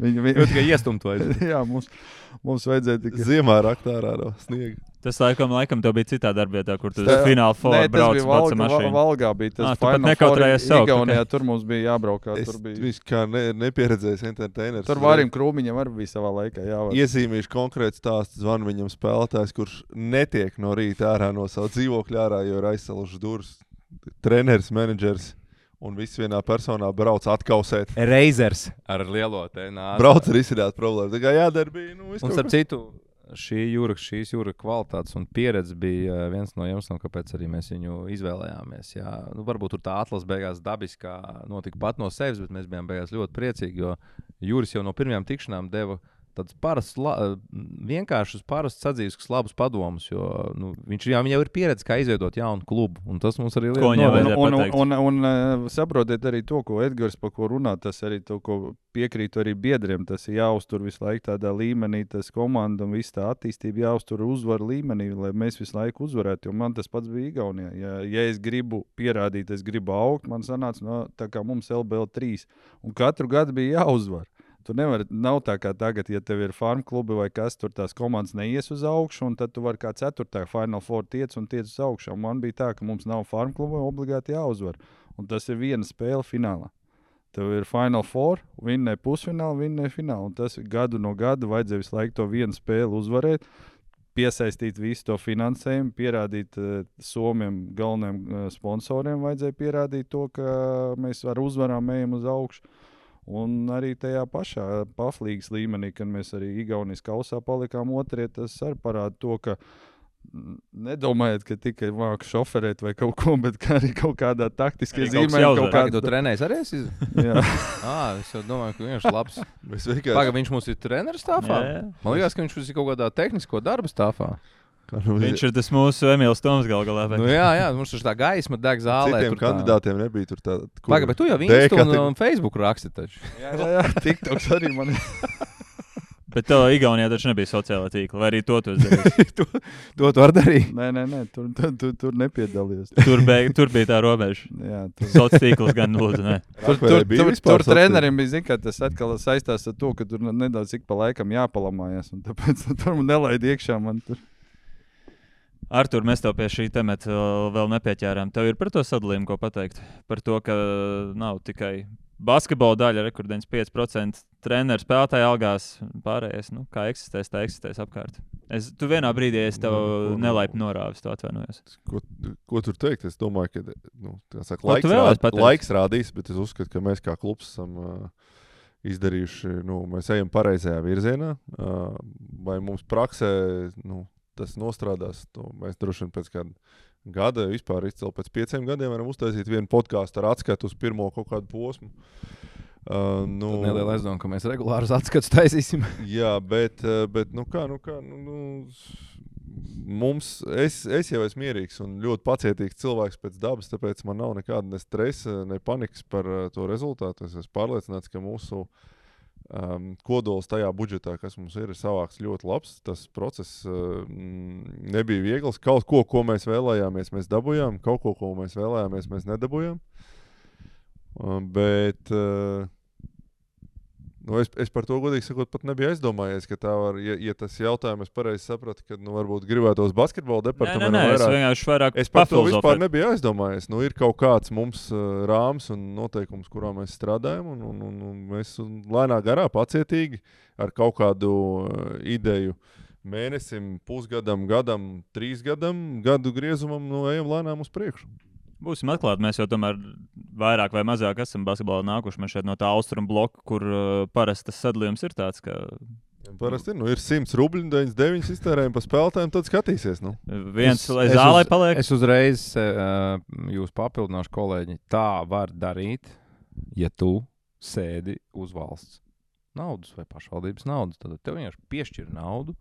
Jau tikai iestumt vajadzēja. Jā, mums vajadzēja tikai... Ziemā raktārā no sniega. Tas laikam tev bija citā darbvietā, kur tu fināla formā brauc pats ar mašīnu. Valgā bija tas Final Four Igaunijā, tur mums bija jābraukā. Viņš kā nepieredzējis entertainers. Tur Vārim Krūmiņam arī bija savā laikā jāvar. Iezīmīšu konkrēti stāstu, zvan viņam spēlētājs, kurš netiek no rīta ārā no savu dzīvokļu ārā, jo ir aizsalušas durvis. Treneris, menedžers un viss vienā personā brauc atkausēt. Reizers ar lielo tēnā. Brauc ar izsināt problēmu. Tā kā jādara bija, un starp citu, šīs jūra kvalitātes un pieredze bija viens no iemesliem, kāpēc arī mēs viņu izvēlējāmies. Jā, varbūt tur tā atlase beigās dabiskā notika pat no sevis, bet mēs bijām beigās ļoti priecīgi, jo Jūris jau no pirmajām tikšanām deva tādus vienkāršus, parastus sadzīviskus labus padomus, jo viņam jau ir pieredze, kā izveidot jaunu klubu, un tas mums arī un saprotiet arī to, ko Edgars par ko runā, tas arī to, ko piekrītu arī biedriem, tas ir jāuztur visu laiku tādā līmenī, tas komanda un viss tā attīstība jāuztur uzvaru līmenī, lai mēs visu laiku uzvarētu, jo man tas pats bija Igaunijā. Ja es gribu pierādīt, es gribu augt, man sanāca, tā kā mums LBL 3, un katru gadu bija jāuzvar. Tu nevari, nav tā kā tagad, ja tev ir farm klubi vai kas, tur tās komandas neies uz augšu, un tad tu vari kā 4. Final Four tiec uz augšu. Un man bija tā, ka mums nav farm klubi, obligāti jāuzvar. Un tas ir viena spēle finālā. Tev ir Final Four, vinnēja pusfinālu, vinnēja finālu. Un tas gadu no gada vajadzēja visu laiku to vienu spēli uzvarēt, piesaistīt visu to finansējumu, pierādīt Somiem galvenajiem sponsoriem, vajadzēja pierādīt to, ka mēs ar uzvarām ejam uz augšu. Un arī tajā pašā paflīgas līmenī, kad mēs arī Igaunijas kausā palikām otrie, tas arī parāda to, ka nedomājiet, ka tikai māku šoferēt vai kaut ko, bet arī kaut kādā taktiskā zīmē. Tu trenējies arī esi? Jā. Es jau domāju, ka viņš ir labs. Viņš mums ir treneris stāvā? Man liekas, ka viņš ir kaut kādā tehnisko darba stāvā. Viņš ir tas mūsu Emīls Toms galā. Jā, mums ir tā gaisma deg zālē. Citiem kandidātiem nebija tur tāda. Bet tu jau Insta un Facebook raksti taču. Jā, TikToks arī man ir. Bet tev Igaunijā taču nebija sociālā tīkla, vai arī to tu darīji? to var darīt. Nē, tur nepiedalījos. Tur bija tā robeža. Jā, sociālā tīkls gan lūdzu, ne. Tur trenerim bija, zin, ka tas atkal saistās ar to, ka tur nedaudz ik pa laikam jāpalamājas, un tāpēc tur man nelaid iekšā man tur. Artur, mēs tev pie šī temata vēl nepieķērām. Tev ir par to sadalījumu, ko pateikt? Par to, ka nav tikai basketbola daļa, rekordens 5% treneru spēlētāju algās, pārējais, kā eksistēs, tā eksistēs apkārt. Tu vienā brīdī es tev nelaipni norāvis, to atvainojos. Ko tur teikt? Es domāju, ka laiks rādīs, bet es uzskatu, ka mēs kā klubs esam izdarījuši, mēs ejam pareizajā virzienā, vai mums praksē, tas nostrādās. Mēs droši vien pēc kāda gada, vispār izcēl pēc 5 gadiem varam uztaisīt vienu podkāstu ar atskatu uz pirmo kaut kādu posmu. Neliela aizdoma, ka mēs regulārus atskatus taisīsim. Jā, bet es jau esmu mierīgs un ļoti pacietīgs cilvēks pēc dabas, tāpēc man nav nekāda ne stresa, ne panikas par to rezultātu. Es esmu pārliecināts, ka mūsu kodols tajā budžetā, kas mums ir savāks ļoti labs. Tas process nebija viegls. Kaut ko mēs vēlējāmies, mēs dabūjām. Kaut ko mēs vēlējāmies, mēs nedabūjām. Bet es par to godīgi sakot pat nebiju aizdomājies, ka tā var, ja tas jautājums es pareizi sapratu, ka varbūt gribētos basketbola departamentu vairāk. Es par to vispār nebiju aizdomājies. Ir kaut kāds mums rāms un noteikums, kurā mēs strādājam, un mēs lēnā garā pacietīgi ar kaut kādu ideju mēnesim, pusgadam, gadam, 3 gadam, gadu griezumam, ejam lēnām uz priekšu. Būsim atklāti, mēs jau tomēr vairāk vai mazāk esam basketbolā nākuši. Mēs šeit no tā austrumu bloka, kur parasti tas sadalījums ir tāds, ka... Parasti ir 100 rubļi, 99 iztērējumi pa spēlētājiem, tad skatīsies. Viens, lai zālē paliek. Es uzreiz jūs papildināšu, kolēģi. Tā var darīt, ja tu sēdi uz valsts naudas vai pašvaldības naudas. Tad tev vienkārši piešķir naudu.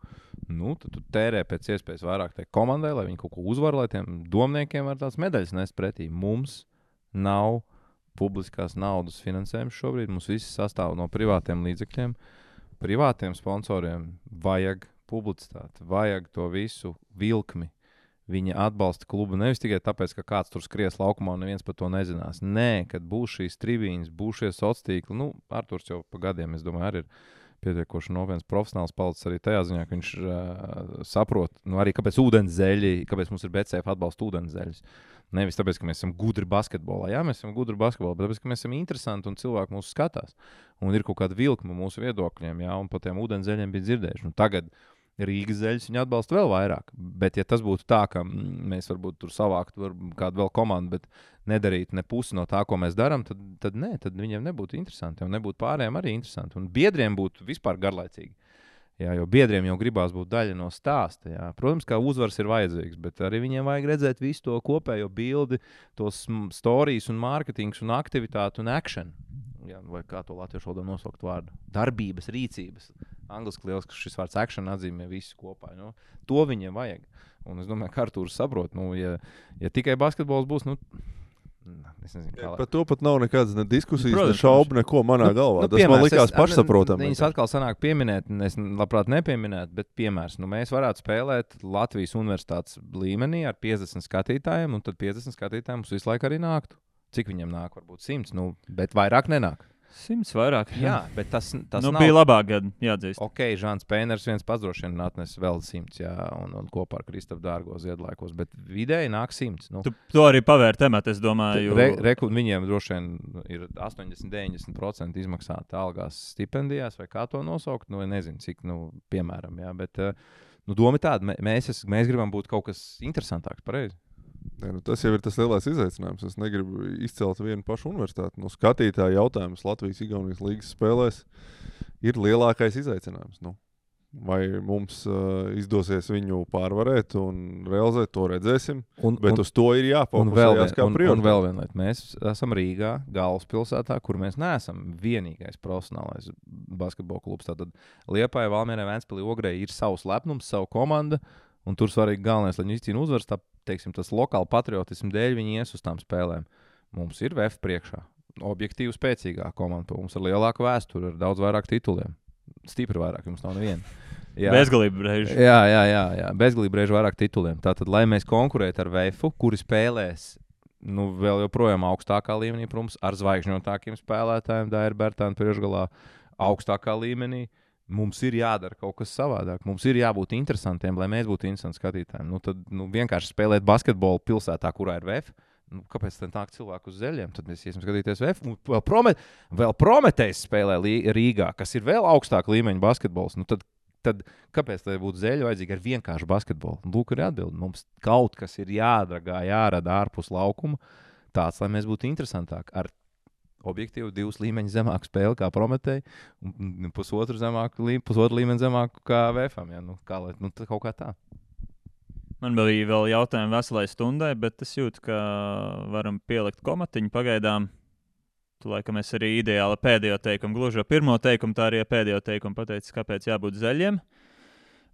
Tad tu tērē pēc iespējas vairāk tai komandai, lai viņi kaut ko uzvar, lai tiem domniekiem var tās medaļas nest pretī. Mums nav publiskās naudas finansējums šobrīd. Mums viss sastāv no privātiem līdzekļiem. Privātiem sponsoriem vajag publicitāti, vajag to visu vilkmi. Viņi atbalsta klubu nevis tikai tāpēc, ka kāds tur skries laukumā un neviens par to nezinās. Nē, kad būs šīs tribīnes, būs šie sociātīkli. Nu, Arturs jau pa gadiem, es domāju, arī ir pietiekoši nopietns profesionāls palicis arī tajā ziņā, ka viņš saprot, arī kāpēc ūdenszeļi, kāpēc mums ir BCF atbalsta ūdenszeļus. Nevis tāpēc, ka mēs esam gudri basketbolā. Jā, mēs esam gudri basketbolā, bet tāpēc, ka mēs esam interesanti un cilvēki mūs skatās. Un ir kaut kāda vilkma mūsu viedokļiem, jā, un par tiem ūdenszeļiem bija dzirdējuši. Tagad Rīgas zeļus viņi atbalsta vēl vairāk. Bet, ja tas būtu tā, ka mēs varbūt tur savāktu kādu vēl komandu, bet nedarītu ne pusi no tā, ko mēs darām, tad nē, tad viņiem nebūtu interesanti. Un nebūtu pārējiem arī interesanti. Un biedriem būtu vispār garlaicīgi. Jā, jo biedriem jau gribās būt daļa no stāsta. Jā. Protams, ka uzvars ir vajadzīgs, bet arī viņiem vajag redzēt visu to kopējo bildi, tos storijas un mārketings un aktivitāti un action. Jā, vai kā to latviešu valodā nosaukt vārdu? Darbības, rīcības. Angliski liels, ka šis vārds action atzīmē visu kopā. Nu, to viņiem vajag. Un es domāju, ka Artūrs saprot, ja tikai basketbols būs, es nezinu, kā. Par to pat nav nekādas ne diskusijas, ne šaubu, neko manā galvā. Tas man likās pašsaprotami. Viņas atkal sanāk pieminēt, es labprāt nepieminētu, bet piemērs. Mēs varētu spēlēt Latvijas universitātes līmenī ar 50 skatītājiem, un tad 50 skatītājiem mums visu laiku arī nāktu. Cik viņiem nāk? Varbūt 100, bet vairāk nenāk. 100 vairāk. Jā, bet tas nav. Bija labāk gadi, jāatzīst. Ok, Žāns Pēners viens pats droši vien atnes vēl 100, jā, un kopā ar Kristapu Dārgo Ziedlaikos, bet vidēji nāk 100. Tu to arī pavēr tematu, es domāju. Viņiem droši vien ir 80-90% izmaksāta algās stipendijās, vai kā to nosaukt, nezinu, cik, piemēram, jā, bet doma tāda, mēs gribam būt kaut kas interesantāks, pareizi. Tas jau ir tas lielais izaicinājums. Es negribu izcelt vienu pašu universitāti. Skatītāju jautājums Latvijas-Igaunijas līgas spēlēs ir lielākais izaicinājums. Vai mums izdosies viņu pārvarēt un realizēt, to redzēsim. Bet uz to ir jāfokusējas kā prioritāte. Un vēl viena lieta. Mēs esam Rīgā, galvaspilsētā, kur mēs neesam vienīgais profesionālais basketbola klubs. Tātad Liepāja, Valmierē, Ventspilī, Ogrē ir savs lepnums, savu komanda. Un tur svarīgi galvenais, lai viņi izcīna uzvaras, tas lokāli patriotismu dēļ viņi ies uz tām spēlēm. Mums ir VF priekšā. Objektīvi spēcīgā komanda. Mums ir lielāka vēsture, ar daudz vairāk tituliem. Stipri vairāk, jums nav neviena. Bezgalība reiži. Jā. Bezgalība reiži vairāk tituliem. Tātad, lai mēs konkurētu ar VF, kuri spēlēs vēl joprojām augstākā līmenī, protams, ar zvaigžņotākiem spēlētājiem, Daira Bertāna priekšgalā augstākā līmenī. Mums ir jādara kaut kas savādāk. Mums ir jābūt interesantiem, lai mēs būtu interesanti skatītājiem. Tad vienkārši spēlēt basketbolu pilsētā, kurā ir VF. Kāpēc tad nāk cilvēku uz zeļiem? Tad mēs iesim skatīties VF. Vēl Prometējs spēlē Rīgā, kas ir vēl augstāk līmeņa basketbols. Tad kāpēc tai būtu zeļi vajadzīgi ar vienkāršu basketbolu? Lūk, ir atbildi. Mums kaut kas ir jārada ārpus laukuma tāds, lai mēs būtu interesantāki. Ar objektīvi 2 līmeņi zemāku spēli kā Prometēji un pusotru līmeni zemāku kā VF-am. Ja? Kaut kā tā. Man bija vēl jautājumi veselai stundai, bet es jūtu, ka varam pielikt komatiņu pagaidām. Tu laikam es arī ideāli pēdējo teikumu, gluži pirmo teikumu, tā arī pēdējo teikumu pateicis, kāpēc jābūt zeļiem.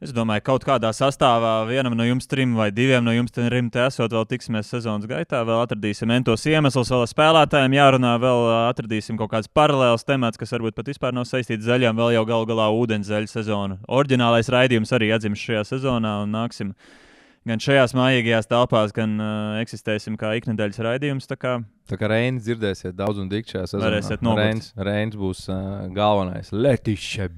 Es domāju, kaut kādā sastāvā vienam no jums 3 vai 2 no jums te esot, vēl tiksimies sezonas gaitā, vēl atradīsim entos iemeslus, vēl ar spēlētājiem jārunā, vēl atradīsim kaut kāds paralēls temats, kas varbūt pat vispār nav saistīts zaļām, vēl jau galu galā ūdenszeļu sezonu. Oriģinālais raidījums arī atdzims šajā sezonā un nāksim gan šajās mājīgajās telpās, gan eksistēsim kā iknedēļas raidījums. Tā kā Reinis dzirdēsiet daudz un dikti šajā sezonā. Varēsiet nogurt. Reinis būs galvenais. Letišķe.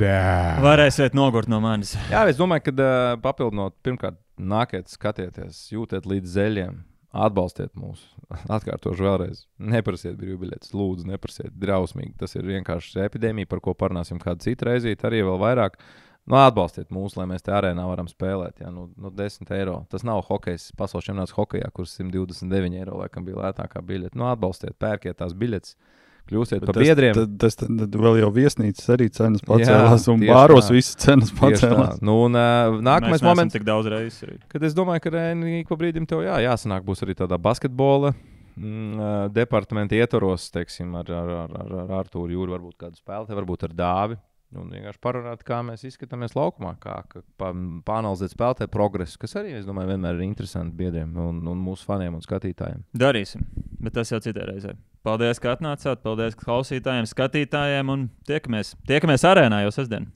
Varēsiet nogurt no manis. Jā, es domāju, ka papildinot, pirmkārt, nākiet, skatieties, jūtiet līdz zeļiem, atbalstiet mūs. Atkārtošu vēlreiz. Neprasiet brīvbiļetes, lūdzu, neprasiet drausmīgi. Tas ir vienkārši epidēmija, par ko parunāsim kādu citu reizīt, arī vēl vairāk. Atbalstiet mūs, lai mēs te arēnā varam spēlēt. Jā, 10 eiro. Tas nav hokejs, pasaules čempionāts hokejā, kurš 129 eiro laikam bija lētākā biļete. Atbalstiet, pērkiet tās biļetes, kļūstiet par biedriem. Tad vēl jau viesnīcas arī cenas pacēlās, un bāros visas cenas pacēlās. Nākamais moments, tik daudz reizes. Kad es domāju, ka ik pa brīdim tev jāsanāk būs arī tādā basketbola departamenta ietvaros, teiksim, ar Artūru Jūru, varbūt kādu spēlētāju, varbūt ar Dāvi. Un vienkārši parunāt, kā mēs izskatāmies laukumā, kā pāanalizēt spēlētāju progresu, kas arī, es domāju, vienmēr ir interesanti biedriem un mūsu faniem un skatītājiem. Darīsim, bet tas jau citā reizē. Paldies, ka atnācāt, paldies klausītājiem, skatītājiem un tiekamies arēnā jau sestdien.